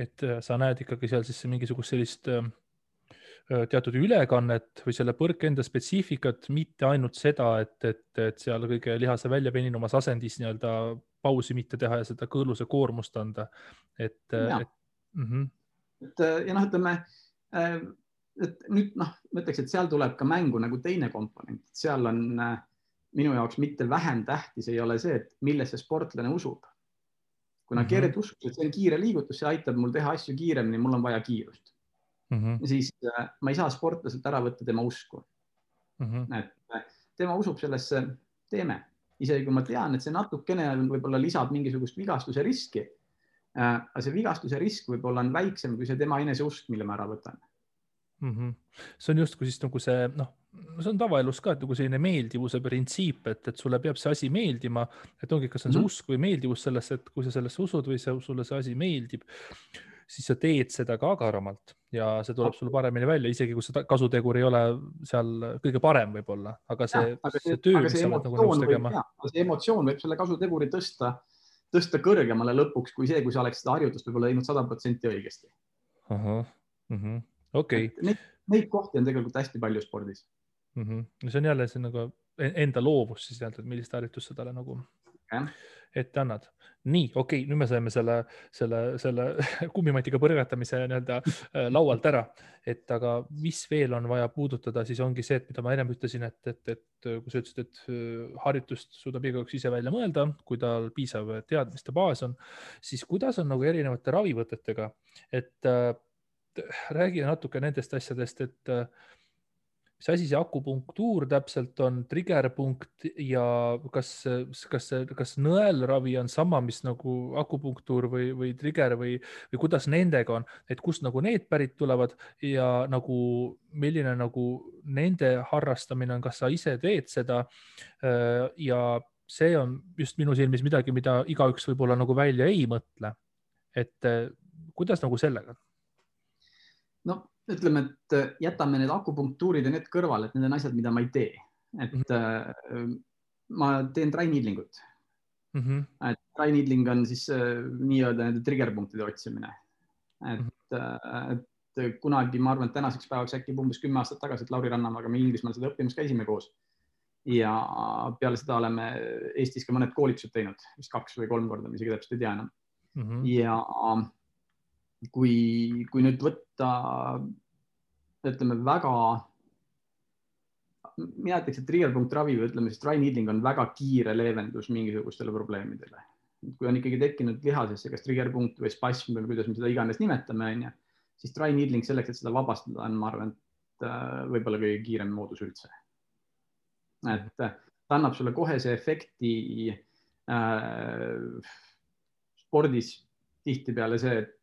et sa näed ikkagi seal siis mingisugust sellist teatud ülekannet või selle põrke enda spetsiifikat, mitte ainult seda, et seal kõige lihase väljapeninumas asendis nii-öelda pausi mitte teha ja seda kõõluse koormust anda. Ütleme, et nüüd ma ütleks, et seal tuleb ka mängu nagu teine komponent. Seal on minu jaoks mitte vähem tähtis ei ole see, et millesse sportlane usub. Kuna keered usub, et see on kiire liigutus, see aitab mul teha asju kiiremini, mul on vaja kiirust. Siis ma ei saa sportlaselt ära võtta tema usku. Et tema usub sellesse teeme. Isegi kui ma tean, et see natukene võib-olla lisab mingisugust vigastuse riski, aga see vigastuse risk võib-olla on väiksem kui see tema eneseusk, mille ma ära võtan. See on justkui siis nagu see, see on tavaelus ka, et nagu selline meeldivuse printsiip, et sulle peab see asi meeldima, et ongi, kas on see usk või meeldivus sellesse, et kui sa sellesse usud või sulle see asi meeldib, siis sa teed seda ka agaramalt ja see tuleb sulle paremini välja, isegi kui see kasutegur ei ole seal kõige parem võib-olla, aga see töö, mis sa oled nagu nõus tegema. See emotsioon võib selle kasuteguri tõsta kõrgemale lõpuks kui see, kui sa oleks seda harjutust võib-olla teinud 100% õigesti. Okay. Neid kohti on tegelikult hästi palju spordis. See on jälle see nagu enda loovus siis, et millist harjutust sa talle nagu ette annad. Nii, okei, nüüd me saime selle kummimatiga põrgatamise nii-öelda laualt ära, et aga mis veel on vaja puudutada, siis ongi see, et mida ma ennem ütlesin, et kui sa ütlesid, et harjutust suudab igaüks ise välja mõelda, kui tal piisav teadmiste baas on, siis kuidas on nagu erinevate ravivõtetega, et räägi natuke nendest asjadest, et mis asi see akupunktuur täpselt on, triggerpunkt ja kas nõelravi on sama, mis nagu akupunktuur või trigger või kuidas nendega on, et kust nagu need pärit tulevad ja nagu milline nagu nende harrastamine on, kas sa ise teed seda ja see on just minu silmis midagi, mida igaüks võib-olla nagu välja ei mõtle. Et kuidas nagu sellega? No ütleme, et jätame need akupunktuurid ja need kõrvale, et need on asjad, mida ma ei tee. Et ma teen dry needlingut. Et dry needling on siis nii-öelda nende triggerpunktide otsimine. Et kunagi, ma arvan, et tänaseks päevaks äkki umbes 10 aastat tagasi, et Lauri Rannamaga me Inglismaal seda õppimas käisime koos. Ja peale seda oleme Eestis ka mõned koolitused teinud, vist 2 või 3 korda, mis isegi täpselt ei tea enam. Ja kui nüüd võtta, ütleme väga, mina ütleks, et triggerpunkt ravi või ütleme siis dry needling on väga kiire leevendus mingisugustele probleemidele. Kui on ikkagi tekkinud lihasesse kas triggerpunkt või spasm või kuidas me seda iganes nimetame, siis dry needling selleks, et seda vabastada on, ma arvan, et võib-olla kõige kiirem moodus üldse. Et ta annab sulle kohe see efekti spordis tihti peale see, et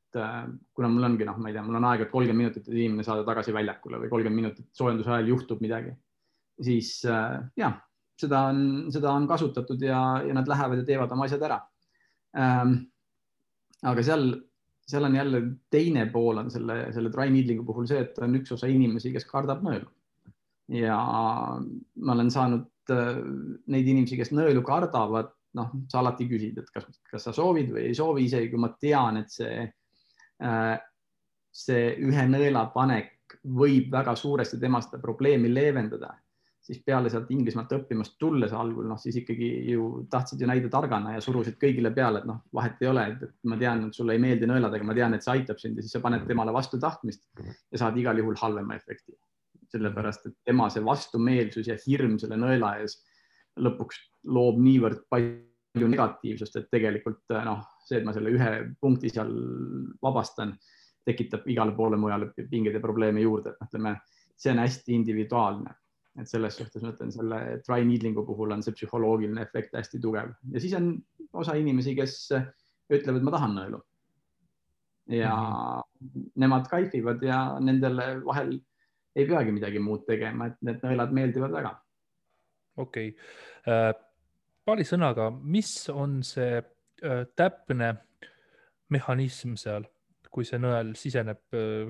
kuna mul ongi, ma ei tea, mul on aega 30 minutit, et inimene saada tagasi väljakule või 30 minutit soojenduse ajal juhtub midagi, siis jah, seda on kasutatud ja nad lähevad ja teevad oma asjad ära. Aga seal on jälle teine pool on selle dry needlingu puhul see, et on üks osa inimesi, kes kardab nõelu. Ja ma olen saanud neid inimesi, kes nõelu kardavad, sa alati küsid, et kas sa soovid või ei soovi, isegi kui ma tean, et see ühe nõela panek võib väga suuresti tema seda probleemi leevendada, siis peale sealt Inglismaalt õppimast tulles algul, siis ikkagi ju tahtsid ju näida targana ja surusid kõigile peale, et vahet ei ole, et ma tean, et sulle ei meeldi nõelad, aga ma tean, et see aitab sind ja siis sa paned temale vastu tahtmist ja saad igal juhul halvema efekti. Sellepärast, et tema see vastumeelsus ja hirm selle nõela ees lõpuks loob niivõrd palju negatiivsust, et tegelikult see, et ma selle ühe punkti seal vabastan, tekitab igale poole mujale pingeid ja probleeme juurde. Ütleme, see on hästi individuaalne. Et selles suhtes ma ütlen, selle dry needlingu puhul on see psühholoogiline efekt hästi tugev. Ja siis on osa inimesi, kes ütlevad, et ma tahan nõelu. Ja nemad kaifivad ja nendele vahel ei peagi midagi muud tegema, et need nõelad meeldivad väga. Okei. Paari sõnaga, mis on see täpne mehhanism seal, kui see nõel siseneb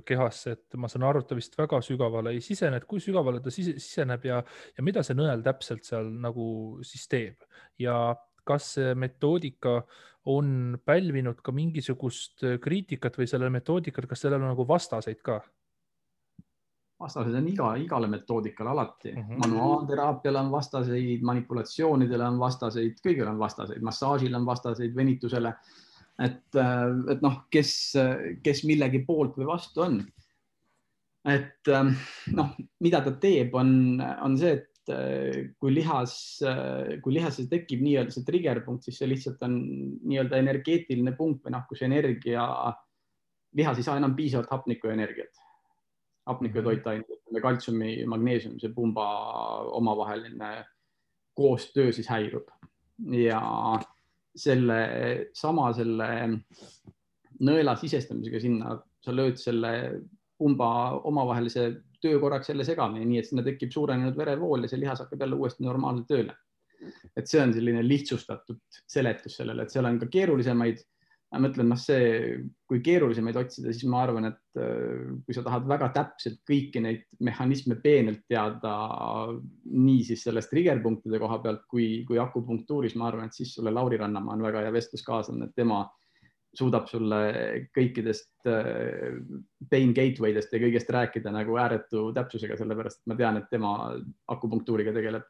kehasse, et ma saan aru, et ta vist väga sügavale ei sisene, et kui sügavale ta siseneb ja mida see nõel täpselt seal nagu siis teeb ja kas see metoodika on pälvinud ka mingisugust kriitikat või sellele metoodikat, kas sellel on nagu vastaseid ka? Vastased on igale metoodikale alati. Manuaalteraapiale on vastaseid, manipulatsioonidele on vastaseid, kõigile on vastaseid, massaažile on vastaseid, venitusele. Et kes millegi poolt või vastu on. Et mida ta teeb, on see, et kui lihas tekib nii-öelda see triggerpunkt, siis see lihtsalt on nii-öelda energeetiline punkt või kus energia, lihas ei saa enam piisavalt hapnikku ja energiat. Hapniku ja toitained, kaltsiumi, magneesiumi, see pumba omavaheline koostöö siis häirub. Ja selle nõela sisestamisega sinna sa lööd selle pumba omavahelise töö korraks jälle segamini, nii et sinna tekib suurenenud verevool ja see lihas hakkab jälle uuesti normaalselt tööle. Et see on selline lihtsustatud seletus sellele, et seal on ka keerulisemaid. Ma mõtlen, kui keerulisemaid otsida, siis ma arvan, et kui sa tahad väga täpselt kõiki neid mehhanisme peenelt teada, nii siis sellest triggerpunktide koha pealt kui akupunktuuris, ma arvan, et siis sulle Lauri Rannamaa on väga hea vestluskaaslane, et tema suudab sulle kõikidest pain gatewaydest ja kõigest rääkida nagu ääretu täpsusega, sellepärast et ma tean, et tema akupunktuuriga tegeleb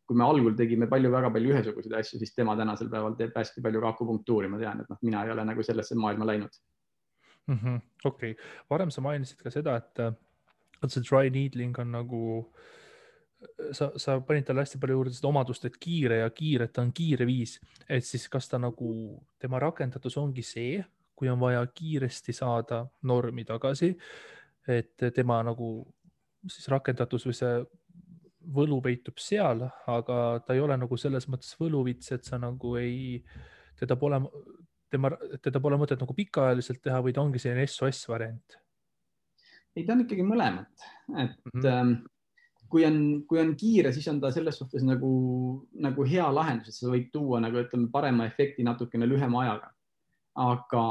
kui me algul tegime väga palju ühesuguseid asju, siis tema tänasel päeval teeb hästi palju ka akupunktuuri, ma tean, et mina ei ole nagu sellesse maailma läinud. Okei. Varem sa mainisid ka seda, et see dry needling on nagu, sa panid talle hästi palju juurde seda omadust, et kiire ja kiire, et ta on kiire viis, et siis kas ta nagu, tema rakendatus ongi see, kui on vaja kiiresti saada normi tagasi, et tema nagu siis rakendatus või see võlu peitub seal, aga ta ei ole nagu selles mõttes võluvits, et sa nagu teda pole mõtet nagu pikaajaliselt teha või ta ongi selline SOS variant? Ei, ta on ikkagi mõlemat, et kui on kiire, siis on ta selles suhtes nagu hea lahendus, et sa võid tuua nagu ütleme parema efekti natukene lühema ajaga. Aga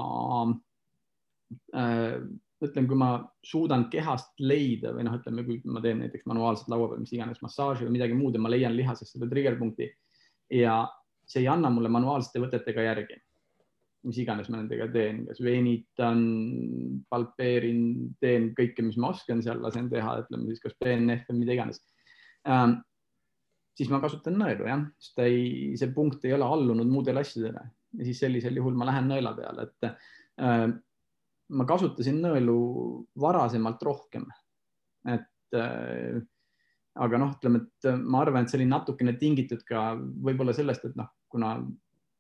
ütlen, kui ma suudan kehast leida või ütleme, kui ma teen näiteks manuaalselt laua peal, mis iganes massaaži või midagi muud ja ma leian lihasest selle triggerpunkti ja see ei anna mulle manuaalsete võtetega järgi, mis iganes ma nendega teen, kas veenitan, palpeerin, teen kõike, mis ma oskan seal, lasen teha, ütleme siis kas PNF või mida iganes. Siis ma kasutan nõelu, jah, sest see punkt ei ole allunud muudele asjadele ja siis sellisel juhul ma lähen nõela peale, et ma kasutasin nõelu varasemalt rohkem, aga ütleme, et ma arvan, et see oli natukene tingitud ka võib-olla sellest, et kuna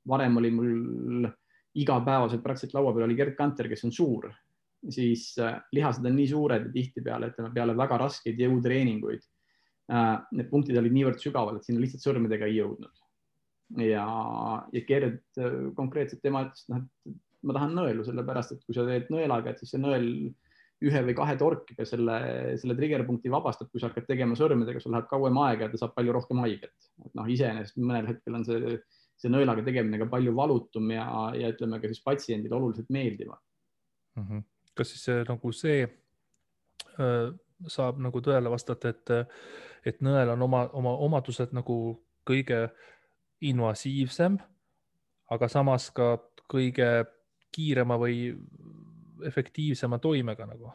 varem oli mul igapäevaselt praktiliselt laua peal oli Gerd Kanter, kes on suur, siis lihased on nii suured ja tihtipeale, ütleme peale väga raskeid jõutreeninguid. Need punktid olid niivõrd sügaval, et sinna lihtsalt sõrmedega ei jõudnud. Ja Gerd konkreetselt tema ütles, et ma tahan nõelu, sellepärast, et kui sa teed nõelaga, et siis see nõel 1 või 2 torkiga selle triggerpunkti vabastab, kui sa hakkad tegema sõrmedega, sul läheb kauem aega ja ta saab palju rohkem haiget. Iseenesest mõnel hetkel on see nõelaga tegemine ka palju valutum ja ütleme ka siis patsiendile oluliselt meeldivam. Kas siis see saab nagu tõele vastata, et nõel on oma omadused nagu kõige invasiivsem, aga samas ka kõige kiirema või efektiivsema toimega nagu?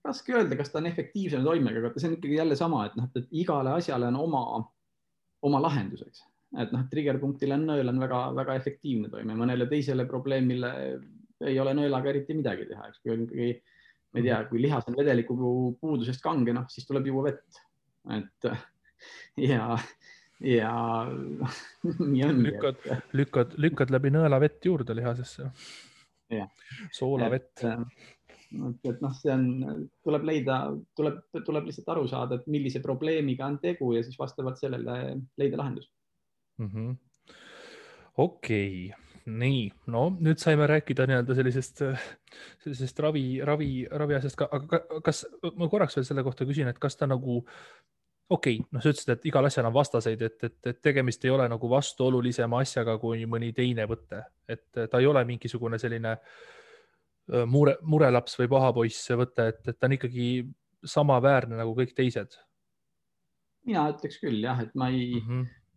Raske öelda, kas ta on efektiivsema toimega, aga see on ikkagi jälle sama, et igale asjale on oma lahenduseks. Et triggerpunktile nõel on väga efektiivne toime, mõnele teisele probleemile ei ole nõelaga eriti midagi teha. Kui, ma ei tea, kui lihas on vedeliku puudusest kange, siis tuleb juua vett. Ja nii ongi. Lükkad läbi nõela vett juurde lihasesse. Soolavett. See on, tuleb lihtsalt aru saada, et millise probleemiga on tegu ja siis vastavalt sellele leida lahendus. Okei. Nii, no nüüd saime rääkida sellisest ravi asjast ka, aga kas ma korraks veel selle kohta küsin, et kas ta nagu okei, sa ütlesid, et igal asjal on vastaseid, et tegemist ei ole nagu vastuolulisema asjaga kui mõni teine võte, et ta ei ole mingisugune selline murelaps või pahapoiss võte, et ta on ikkagi samaväärne nagu kõik teised. Mina ütleks küll jah, et ma ei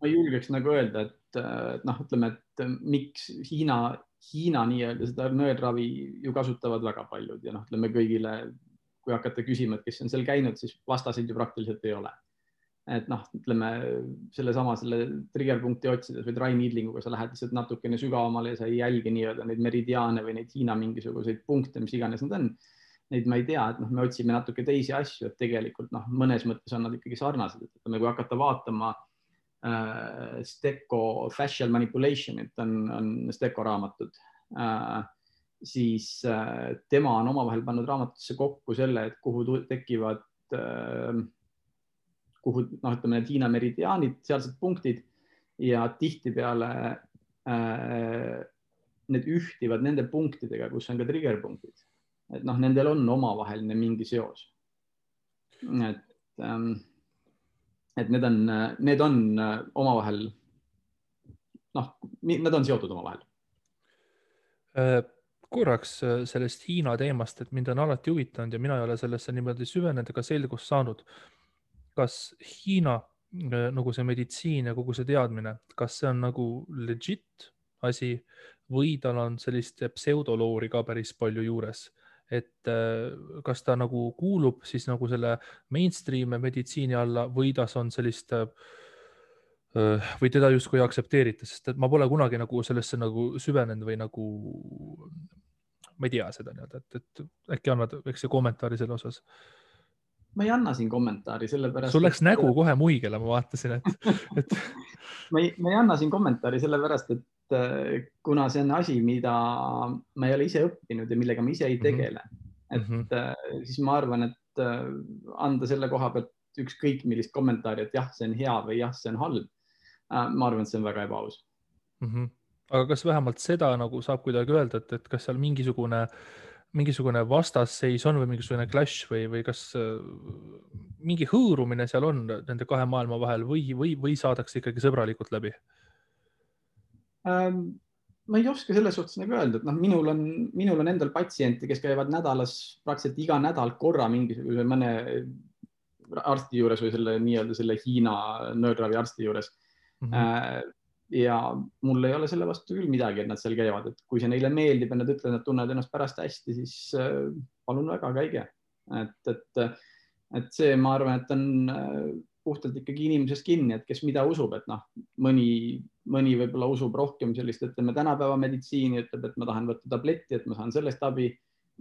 julgeks nagu öelda, et ütleme, et miks Hiina nii-öelda seda nõelravi ju kasutavad väga paljud ja ütleme kõigile, kui hakata küsima, et kes on seal käinud, siis vastaseid ju praktiliselt ei ole. Et ütleme selle triggerpunkti otsides või dry needlinguga sa lähed lihtsalt natukene sügavamale ja sa ei jälgi nii-öelda neid meridiaane või neid Hiina mingisuguseid punkte, mis iganes need on. Neid ma ei tea, et me otsime natuke teisi asju, et tegelikult mõnes mõttes on nad ikkagi sarnased. Et kui hakata vaatama Stecco Fascial Manipulation, et on Stecco raamatud, siis tema on omavahel pannud raamatutesse kokku selle, et kuhu tekivad ütleme need Hiina meridiaanid, sealsed punktid ja tihtipeale need ühtivad nende punktidega, kus on ka triggerpunktid. Et nendel on omavaheline mingi seos. Et need on omavahel, nad on seotud omavahel. Korraks sellest Hiina teemast, et mind on alati huvitanud ja mina ei ole sellesse niimoodi süvenenud ega selgust saanud. Kas Hiina nagu see meditsiin ja kogu see teadmine, kas see on nagu legit asi või tal on sellist pseudoloori ka päris palju juures, et kas ta nagu kuulub siis nagu selle mainstream meditsiini alla või tas on sellist või teda justkui aktsepteerita, sest et ma pole kunagi nagu sellesse nagu süvenenud või nagu ma ei tea seda nii-öelda, et äkki annad väikse kommentaari selle osas. Ma ei anna siin kommentaari, sellepärast... Sul läks nägu kohe muigele, ma vaatasin, et... ma ei anna siin kommentaari sellepärast, et kuna see on asi, mida ma ei ole ise õppinud ja millega ma ise ei tegele, siis ma arvan, et anda selle koha pealt ükskõik millist kommentaari, et jah, see on hea või jah, see on halb. Ma arvan, et see on väga ebaaus. Aga kas vähemalt seda nagu saab kuidagi öelda, et kas seal mingisugune vastasseis on või mingisugune clash või kas mingi hõõrumine seal on nende kahe maailma vahel või saadakse ikkagi sõbralikult läbi? Ma ei oska selles suhtes nagu öelda, et minul on endal patsiente, kes käivad nädalas praktiliselt iga nädal korra mingisuguse mõne arsti juures või selle Hiina nöörravi arsti juures. Ja mul ei ole selle vastu küll midagi, et nad seal käivad, et kui see neile meeldib ja nad ütlevad, et tunnevad ennast pärast hästi, siis palun väga, käige. Et see, ma arvan, et on puhtalt ikkagi inimesest kinni, et kes mida usub, et mõni võib-olla usub rohkem sellist, ütleme tänapäeva meditsiini, ütleb, et ma tahan võtta tabletti, et ma saan sellest abi,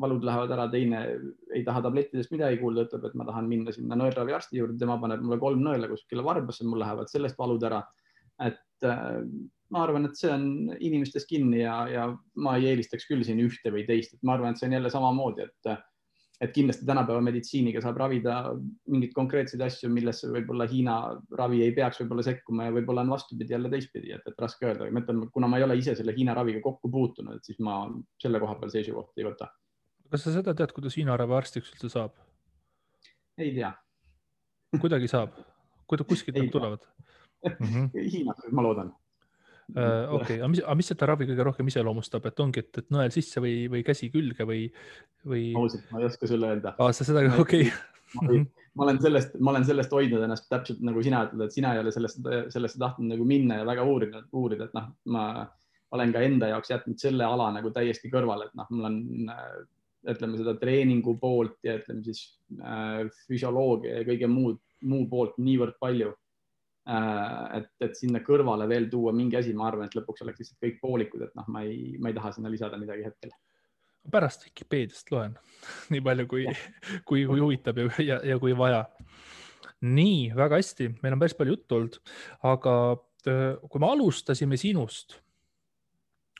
valud lähevad ära, teine ei taha tablettidest midagi kuulda, ütleb, et ma tahan minna sinna nõelravi arsti juurde, tema paneb mulle 3 nõela kuskile varbasse, mul lähevad sellest valud ära. Et ma arvan, et see on inimestest kinni ja ma ei eelistaks küll siin ühte või teist. Et ma arvan, et see on jälle samamoodi, et kindlasti tänapäeva meditsiiniga saab ravida mingid konkreetseid asju, millesse võib-olla Hiina ravi ei peaks võib-olla sekkuma ja võib-olla on vastupidi jälle teistpidi, et raske öelda. Ma ütlen, kuna ma ei ole ise selle Hiina raviga kokku puutunud, siis ma selle koha peal seisukohta ei võta. Kas sa seda tead, kuidas Hiina ravi arstiks üldse saab? Ei tea. Kuidagi saab? Kuskilt nad tulevad? Hiinas, ma loodan. Okei, aga mis seda ravi kõige rohkem iseloomustab, et ongi, et nõel sisse või käsi külge või? Ausalt, ma ei oska sulle öelda. Sa seda, okei. Ma olen sellest hoidnud ennast täpselt nagu sina ütled, et sina ei ole sellesse tahtnud nagu minna ja väga uurida, et ma olen ka enda jaoks jätnud selle ala nagu täiesti kõrvale, et mul on ütleme seda treeningu poolt ja ütleme siis füsioloogia ja kõige muu poolt niivõrd palju. Et sinna kõrvale veel tuua mingi asi, ma arvan, et lõpuks oleks lihtsalt kõik poolikud, et ma ei taha sinna lisada midagi hetkel. Pärast Wikipeediast loen nii palju, kui huvitab ja kui vaja. Nii, väga hästi. Meil on päris palju juttu olnud, aga kui me alustasime sinust,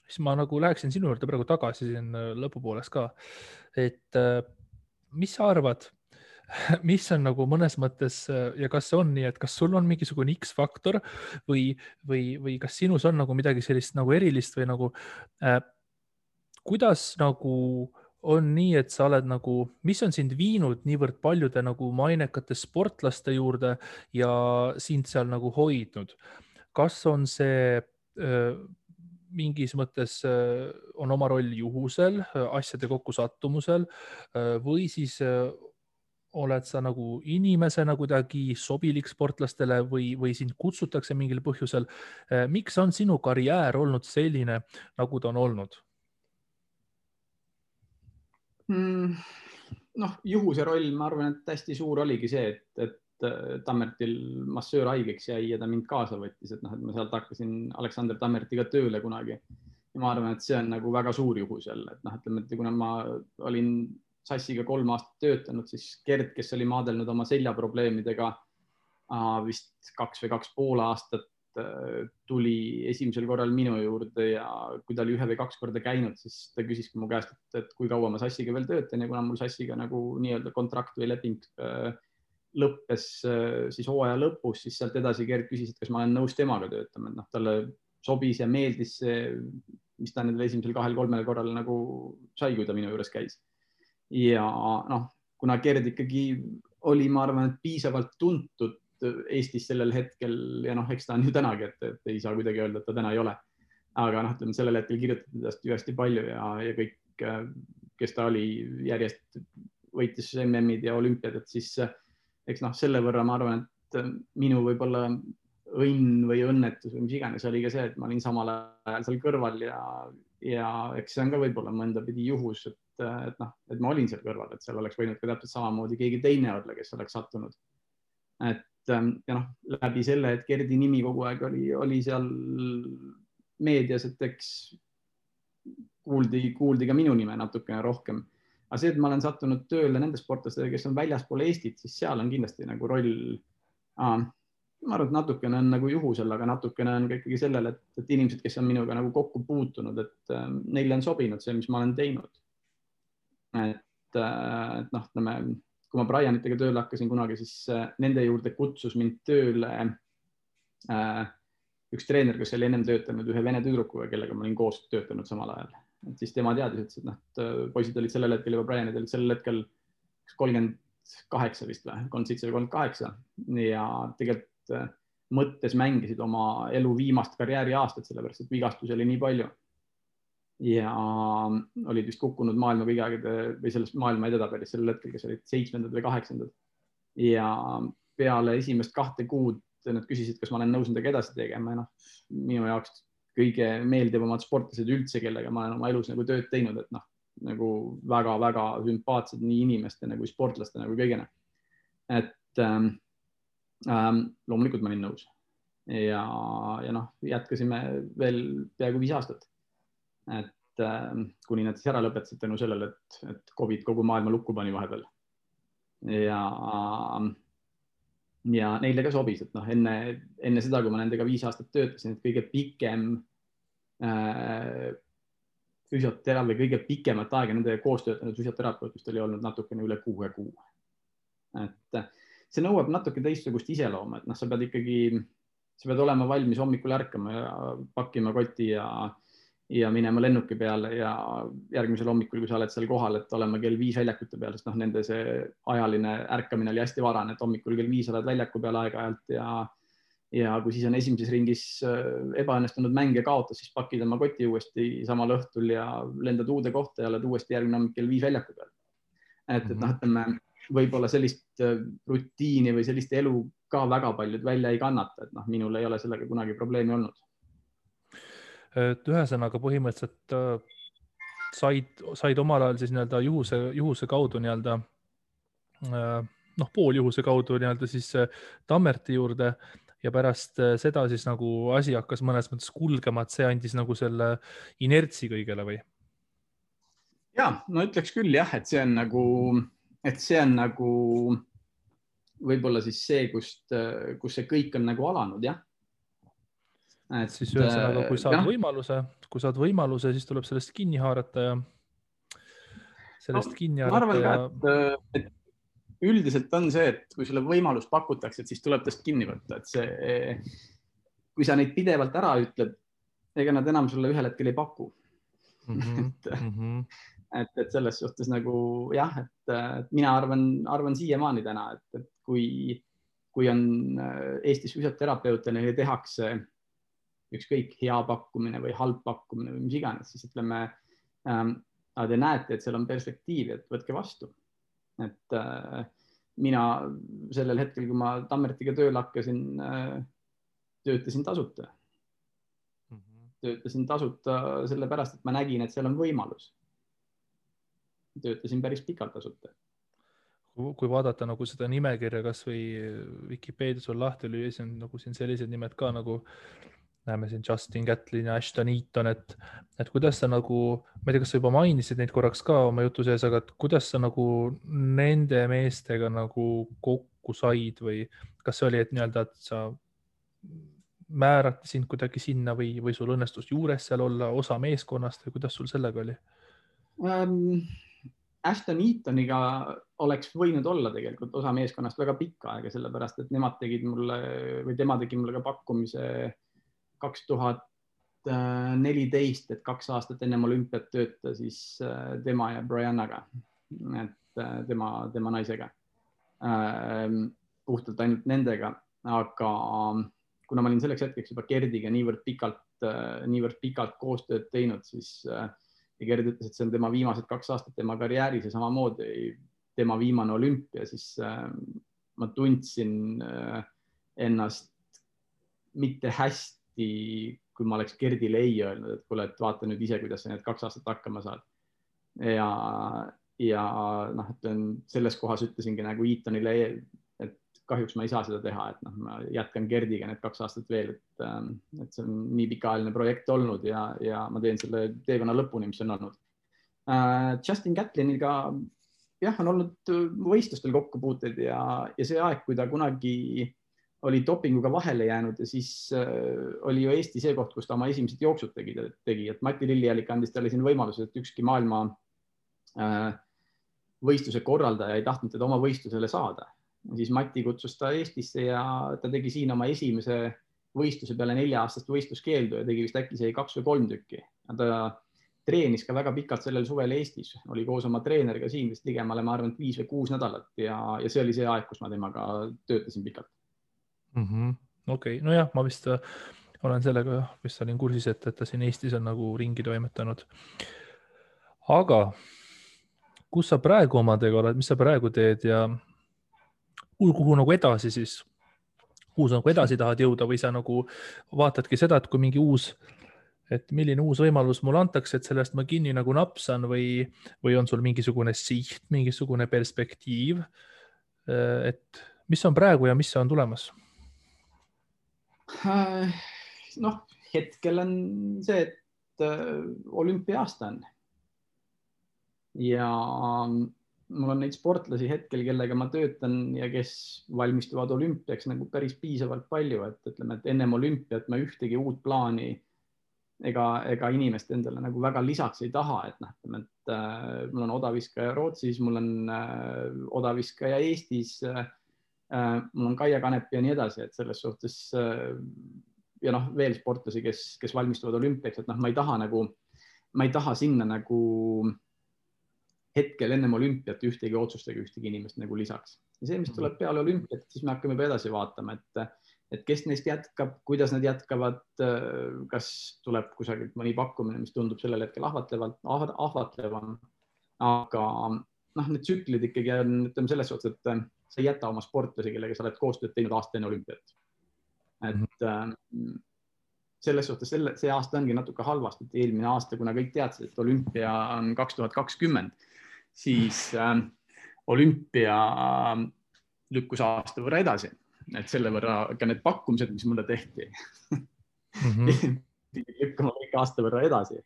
siis ma nagu läheksin sinu juurde praegu tagasi siin lõpupoolest ka. Et mis sa arvad, mis on nagu mõnes mõttes ja kas see on nii, et kas sul on mingisugune X-faktor või kas sinus on nagu midagi sellist nagu erilist või nagu kuidas nagu on nii, et sa oled nagu, mis on sind viinud niivõrd paljude nagu mainekate sportlaste juurde ja sind seal nagu hoidnud? Kas on see mingis mõttes on oma roll juhusel, asjade kokkusattumusel või siis oled sa nagu inimesena kuidagi sobilik sportlastele või sind kutsutakse mingil põhjusel? Miks on sinu karjäär olnud selline, nagu ta on olnud? Juhuse roll, ma arvan, et hästi suur oligi see, et Tammertil massöör haigeks jäi ja ta mind kaasa võttis, et ma sealt hakkasin Aleksander Tammertiga tööle kunagi. Ja ma arvan, et see on nagu väga suur juhus jälle, et ütleme, et kuna ma olin Sassiga 3 aastat töötanud, siis Gerd, kes oli maadelnud oma seljaprobleemidega vist 2 või 2,5 aastat, tuli esimesel korral minu juurde ja kui ta oli 1 või 2 korda käinud, siis ta küsiski mu käest, et kui kaua ma Sassiga veel töötan ja kuna mul Sassiga nagu nii-öelda kontrakt või leping lõppes siis hooaja lõpus, siis sealt edasi Gerd küsis, et kas ma olen nõus temaga töötama, et talle sobis ja meeldis see, mis ta nendel esimesel 2-3 korral nagu sai, kui ta minu juures käis. Ja kuna Gerd ikkagi oli, ma arvan, et piisavalt tuntud Eestis sellel hetkel ja eks ta on ju tänagi, et ei saa kuidagi öelda, et ta täna ei ole. Aga ütleme, sellel hetkel kirjutati tast ju hästi palju ja kõik, kes ta oli, järjest võitis MM-id ja olümpiad, et siis eks selle võrra ma arvan, et minu võib-olla õnn või õnnetus või mis iganes oli ka see, et ma olin samal ajal seal kõrval ja eks see on ka võib-olla mõnda pidi juhus, et ma olin seal kõrval, et seal oleks võinud ka täpselt samamoodi keegi teine olla, kes oleks sattunud. Et ja noh, läbi selle, et Gerdi nimi kogu aeg oli seal meedias, et eks kuuldi ka minu nime natukene rohkem. Aga see, et ma olen sattunud tööle nende sportlastega, kes on väljaspool Eestit, siis seal on kindlasti nagu roll. Ma arvan, et natukene on nagu juhusel, aga natukene on ka ikkagi sellel, et inimesed, kes on minuga nagu kokku puutunud, et neile on sobinud see, mis ma olen teinud. Et noh, kui ma Brianitega tööle hakkasin kunagi, siis nende juurde kutsus mind tööle üks treener, kes oli ennem töötanud ühe vene tüdrukuga, kellega ma olin koos töötanud samal ajal. Et siis tema teadis, et poisid olid sellel hetkel juba, Brianid olid sellel hetkel 38 vist või, 37 või 38 ja tegelikult mõttes mängisid oma elu viimast karjääriaastat, sellepärast et vigastusi oli nii palju. Ja olid vist kukkunud maailma vigagide või sellest maailma edetabelis sellel hetkel, kes olid 7. või 8. Ja peale esimest 2 kuud nad küsisid, kas ma olen nõus nendega edasi tegema. Ja minu jaoks kõige meeldivamad sportlased üldse, kellega ma olen oma elus nagu tööd teinud, et nagu väga-väga sümpaatsed nii inimeste nagu sportlaste nagu kõigena. Et loomulikult ma olin nõus. Ja jätkasime veel peaaegu 5 aastat. Et kuni nad siis ära lõpetasid tänu sellele, et COVID kogu maailma lukku pani vahepeal. Ja neile ka sobis, et enne seda, kui ma nendega 5 aastat töötasin, et kõige pikem füsioteraapia, kõige pikemat aega nendega koos töötanud füsioterapeutist oli olnud natukene üle 6 kuu. Et see nõuab natuke teistsugust iseloomu, et sa pead olema valmis hommikul ärkama ja pakkima koti ja minema lennuki peale ja järgmisel hommikul, kui sa oled seal kohal, et olema kell 5 väljakute peal, sest nende see ajaline ärkamine oli hästi varane, et hommikul kell 5 oled väljaku peal aeg-ajalt ja kui siis on esimeses ringis ebaõnnestunud mäng ja kaotas, siis pakid oma koti uuesti samal õhtul ja lendad uude kohta ja oled uuesti järgmine hommik kell 5 väljaku peal. Et võib-olla sellist rutiini või sellist elu ka väga paljud välja ei kannata, et minul ei ole sellega kunagi probleemi olnud. Et ühesõnaga põhimõtteliselt said omal ajal siis juhuse kaudu pooljuhuse kaudu siis Tammerti juurde ja pärast seda siis nagu asi hakkas mõnes mõttes kulgema, et see andis nagu selle inertsi kõigele või? Ja, no ütleks küll jah, et see on nagu võib-olla siis see, kus see kõik on nagu alanud, jah. Siis ühesõnaga, kui saad võimaluse, siis tuleb sellest kinni haarata ja ma arvan ka, et üldiselt on see, et kui sulle võimalust pakutakse, et siis tuleb tast kinni võtta, et kui sa neid pidevalt ära ütled, ega nad enam sulle ühel hetkel ei paku. Et selles suhtes nagu jah, et mina arvan siiamaani täna, et kui on Eestis füsioterapeute, neile tehakse ükskõik hea pakkumine või halb pakkumine või mis iganes, siis ütleme, te näete, et seal on perspektiivi, et võtke vastu. Et mina sellel hetkel, kui ma Tammertiga tööle hakkasin, töötasin tasuta. Töötasin tasuta sellepärast, et ma nägin, et seal on võimalus. Töötasin päris pikalt tasuta. Kui vaadata nagu seda nimekirja, kas või Wikipeedias on lahti lüüa, siis on nagu siin sellised nimed ka nagu näeme siin Justin Gatlin ja Ashton Eaton, et kuidas sa nagu, ma ei tea, kas sa juba mainisid neid korraks ka oma jutu sees, aga kuidas sa nagu nende meestega nagu kokku said või kas see oli, et et sa määrati sind kuidagi sinna või sul õnnestus juures seal olla osa meeskonnast või kuidas sul sellega oli? Ashton Eatoniga oleks võinud olla tegelikult osa meeskonnast väga pikka aega, sellepärast, et tema tegi mulle ka pakkumise 2014, et 2 aastat ennem olümpiat tööta siis tema ja Briannaga, et tema naisega, puhtalt ainult nendega, aga kuna ma olin selleks hetkeks juba Gerdiga niivõrd pikalt koostööd teinud, siis Gerd ütles, et see on tema viimased 2 aastat tema karjääris ja samamoodi tema viimane olümpia, siis ma tundsin ennast mitte hästi, kui ma oleks Gerdile ei öelnud, et kuule, et vaata nüüd ise, kuidas sa need 2 aastat hakkama saad. Ja selles kohas ütlesingi nagu Eatonile, et kahjuks ma ei saa seda teha, et noh, ma jätkan Gerdiga need 2 aastat veel, et see on nii pikaajaline projekt olnud ja ma teen selle teekonna lõpuni, mis on olnud. Justin Gatliniga jah, on olnud võistlustel kokkupuuted ja see aeg, kui ta kunagi oli dopinguga vahele jäänud ja siis oli ju Eesti see koht, kus ta oma esimesed jooksud tegi, et Mati Lillijällik andis talle siin võimaluse, et ükski maailma võistluse korraldaja ei tahtnud teda oma võistlusele saada. Siis Mati kutsus ta Eestisse ja ta tegi siin oma esimese võistluse peale 4-aastast võistluskeeldu ja tegi vist äkki see 2 või 3 tükki. Ta treenis ka väga pikalt sellel suvel Eestis, oli koos oma treeneriga siin vist ligemale, ma arvan, 5 või 6 nädalat ja see oli see aeg, kus ma temaga töötasin pikalt. Okei, nojah, ma vist olen sellega vist olin kursis, et ta siin Eestis on nagu ringi toimetanud. Aga kus sa praegu omadega oled, mis sa praegu teed ja kuhu nagu edasi siis? Kuhu sa nagu edasi tahad jõuda või sa nagu vaatadki seda, et kui mingi milline uus võimalus mulle antakse, et sellest ma kinni nagu napsan või on sul mingisugune siht, mingisugune perspektiiv, et mis on praegu ja mis on tulemas? Noh, hetkel on see, et olümpiaasta on ja mul on neid sportlasi hetkel, kellega ma töötan ja kes valmistuvad olümpiaks nagu päris piisavalt palju, et ütleme, et ennem olümpiat ma ühtegi uut plaani ega inimest endale nagu väga lisaks ei taha, et noh, ütleme, et mul on odaviskaja Rootsis, mul on odaviskaja Eestis, mul on Kaia Kanepi ja nii edasi, et selles suhtes ja noh, veel sportlasi, kes valmistuvad olümpiaks, et noh, ma ei taha sinna nagu hetkel ennem olümpiat ühtegi otsustega ühtegi inimest nagu lisaks. Ja see, mis tuleb peale olümpiat, siis me hakkame edasi vaatama, et kes neist jätkab, kuidas nad jätkavad, kas tuleb kusagilt mõni pakkumine, mis tundub sellel hetkel ahvatlevam. Aga noh, need tsüklid ikkagi on, ütleme selles suhtes, et sa ei jäta oma sportlasi, kellega sa oled koostööd teinud aasta enne olümpiat. Et selles suhtes see aasta ongi natuke halvasti, et eelmine aasta, kuna kõik teadsid, et olümpia on 2020, siis olümpia lükkus aasta võrra edasi. Et selle võrra ka need pakkumised, mis mulle tehti, lükkama kõik aasta võrra edasi.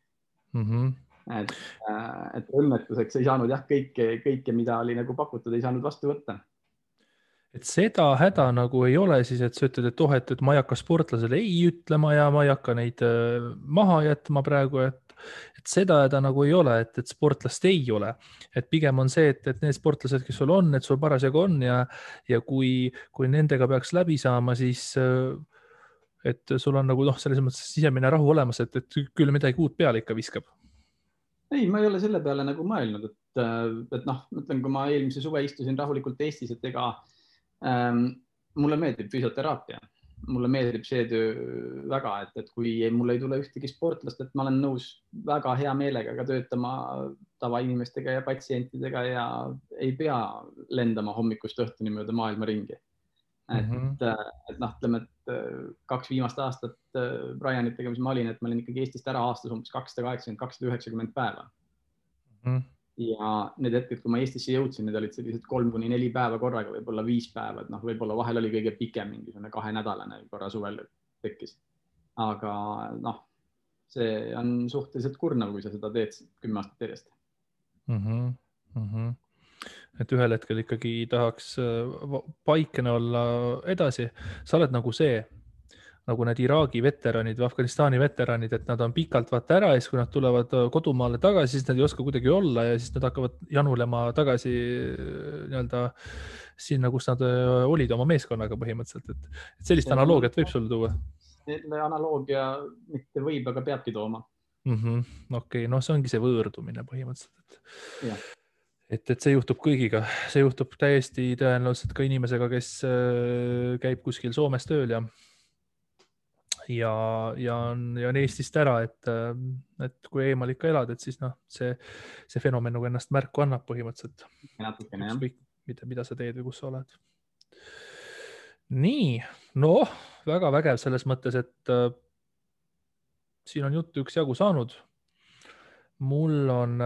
Et õnnetuseks ei saanud jah, kõike, mida oli nagu pakutud, ei saanud vastu võtta. Et seda häda nagu ei ole siis, et sa ütled, et ma ei hakka sportlasele ei ütlema ja ma ei hakka neid maha jätma praegu, et seda häda nagu ei ole, et sportlast ei ole. Et pigem on see, et need sportlased, kes sul on, et sul parasjagu on ja kui nendega peaks läbi saama, siis et sul on nagu selles mõttes sisemine rahu olemas, et küll midagi uut peale ikka viskab. Ei, ma ei ole selle peale nagu mõelnud, et noh, mõtlen, kui ma eelmise suve istusin rahulikult Eestis, et ega mulle meeldib füsioteraapia. Mulle meeldib see töö väga, et kui mul ei tule ühtegi sportlast, et ma olen nõus väga hea meelega ka töötama tavainimestega ja patsientidega ja ei pea lendama hommikust õhtuni mööda maailma ringi. Et noh, ütleme, et 2 viimast aastat Brianitega, mis ma olin, et ma olin ikkagi Eestist ära aastas umbes 280-290 päeva. Ja need hetked, kui ma Eestisse jõudsin, need olid sellised 3-4 päeva korraga, võib-olla 5 päeva, et noh, võib-olla vahel oli kõige pikem mingisugune 2-nädalane korra suvel tekkis. Aga noh, see on suhteliselt kurnav, kui sa seda teed 10 aastat järjest. Et ühel hetkel ikkagi tahaks paikene olla edasi. Sa oled nagu nagu need Iraagi veteranid või Afganistani veteranid, et nad on pikalt vaata ära ja siis, kui nad tulevad kodumaale tagasi, siis nad ei oska kuidagi olla ja siis nad hakkavad janulema tagasi nii-öelda sinna, kus nad olid oma meeskonnaga põhimõtteliselt. Et sellist analoogiat võib sul tuua? Selle analoogia mitte võib, aga peabki tooma. Okei, no see ongi see võõrdumine põhimõtteliselt. Ja. Et see juhtub kõigiga. See juhtub täiesti tõenäoliselt ka inimesega, kes käib kuskil Soomes tööl ja on Eestist ära, et kui eemal ikka elad, et siis noh, see fenomen nagu ennast märku annab põhimõtteliselt. Natukene, jah. Mida sa teed või kus sa oled. Nii, noh, väga vägev selles mõttes, et siin on juttu üksjagu saanud. Mul on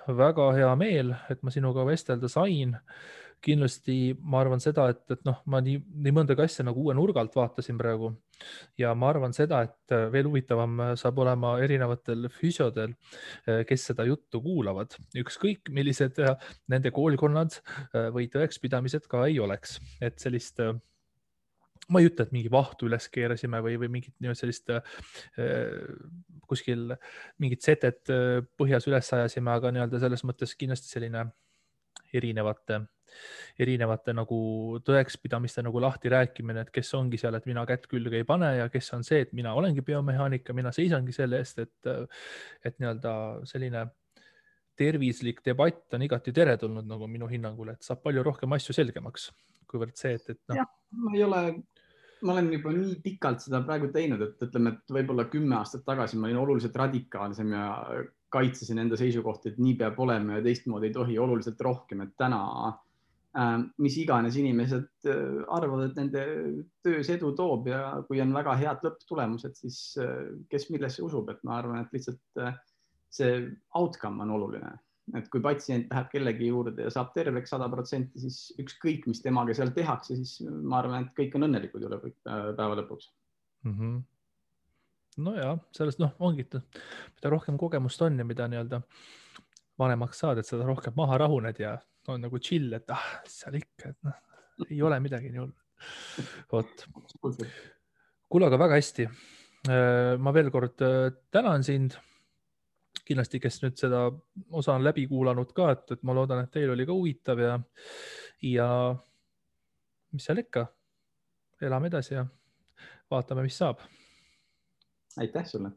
väga hea meel, et ma sinuga vestelda sain. kindlasti ma arvan seda, et noh, ma nii mõndagi asja nagu uue nurga alt vaatasin praegu ja ma arvan seda, et veel huvitavam saab olema erinevatel füsiodel, kes seda juttu kuulavad, ükskõik millised nende koolkonnad või tõekspidamised ka ei oleks, et sellist ma ei ütle, et mingi vahtu üles keerasime või mingit sellist kuskil mingit setet põhjas üles ajasime, aga selles mõttes kindlasti selline erinevate nagu tõekspidamiste nagu lahti rääkimine, et kes ongi seal, et mina kätt külge ei pane ja kes on see, et mina olengi biomehaanika, mina seisangi selle eest, et selline tervislik debatt on igati teretulnud nagu minu hinnangul, et saab palju rohkem asju selgemaks, kuivõrd see, et noh. Jah, ma olen juba nii pikalt seda praegu teinud, et ütleme, et võib-olla 10 aastat tagasi ma olin oluliselt radikaalsem ja kaitsesin enda seisukohti, et nii peab olema ja teistmoodi ei tohi oluliselt rohkem, et täna mis iganes inimesed arvavad, et nende töös edu toob ja kui on väga head lõpptulemused, siis kes millesse usub, et ma arvan, et lihtsalt see outcome on oluline, et kui patsient läheb kellegi juurde ja saab terveks 100%, siis ükskõik, mis temaga seal tehakse, siis ma arvan, et kõik on õnnelikud üle päeva lõpuks. Nojah, sellest ongi, mida rohkem kogemust on ja mida vanemaks saad, et seda rohkem maha rahuned ja on nagu chill, et seal ikka, et ei ole midagi nii hullu. Vot. Kuule, aga väga hästi. Ma veel kord tänan sind. Kindlasti, kes nüüd seda osa on läbi kuulanud ka, et ma loodan, et teil oli ka huvitav ja mis seal ikka, elame edasi ja vaatame, mis saab. Aitäh sulle.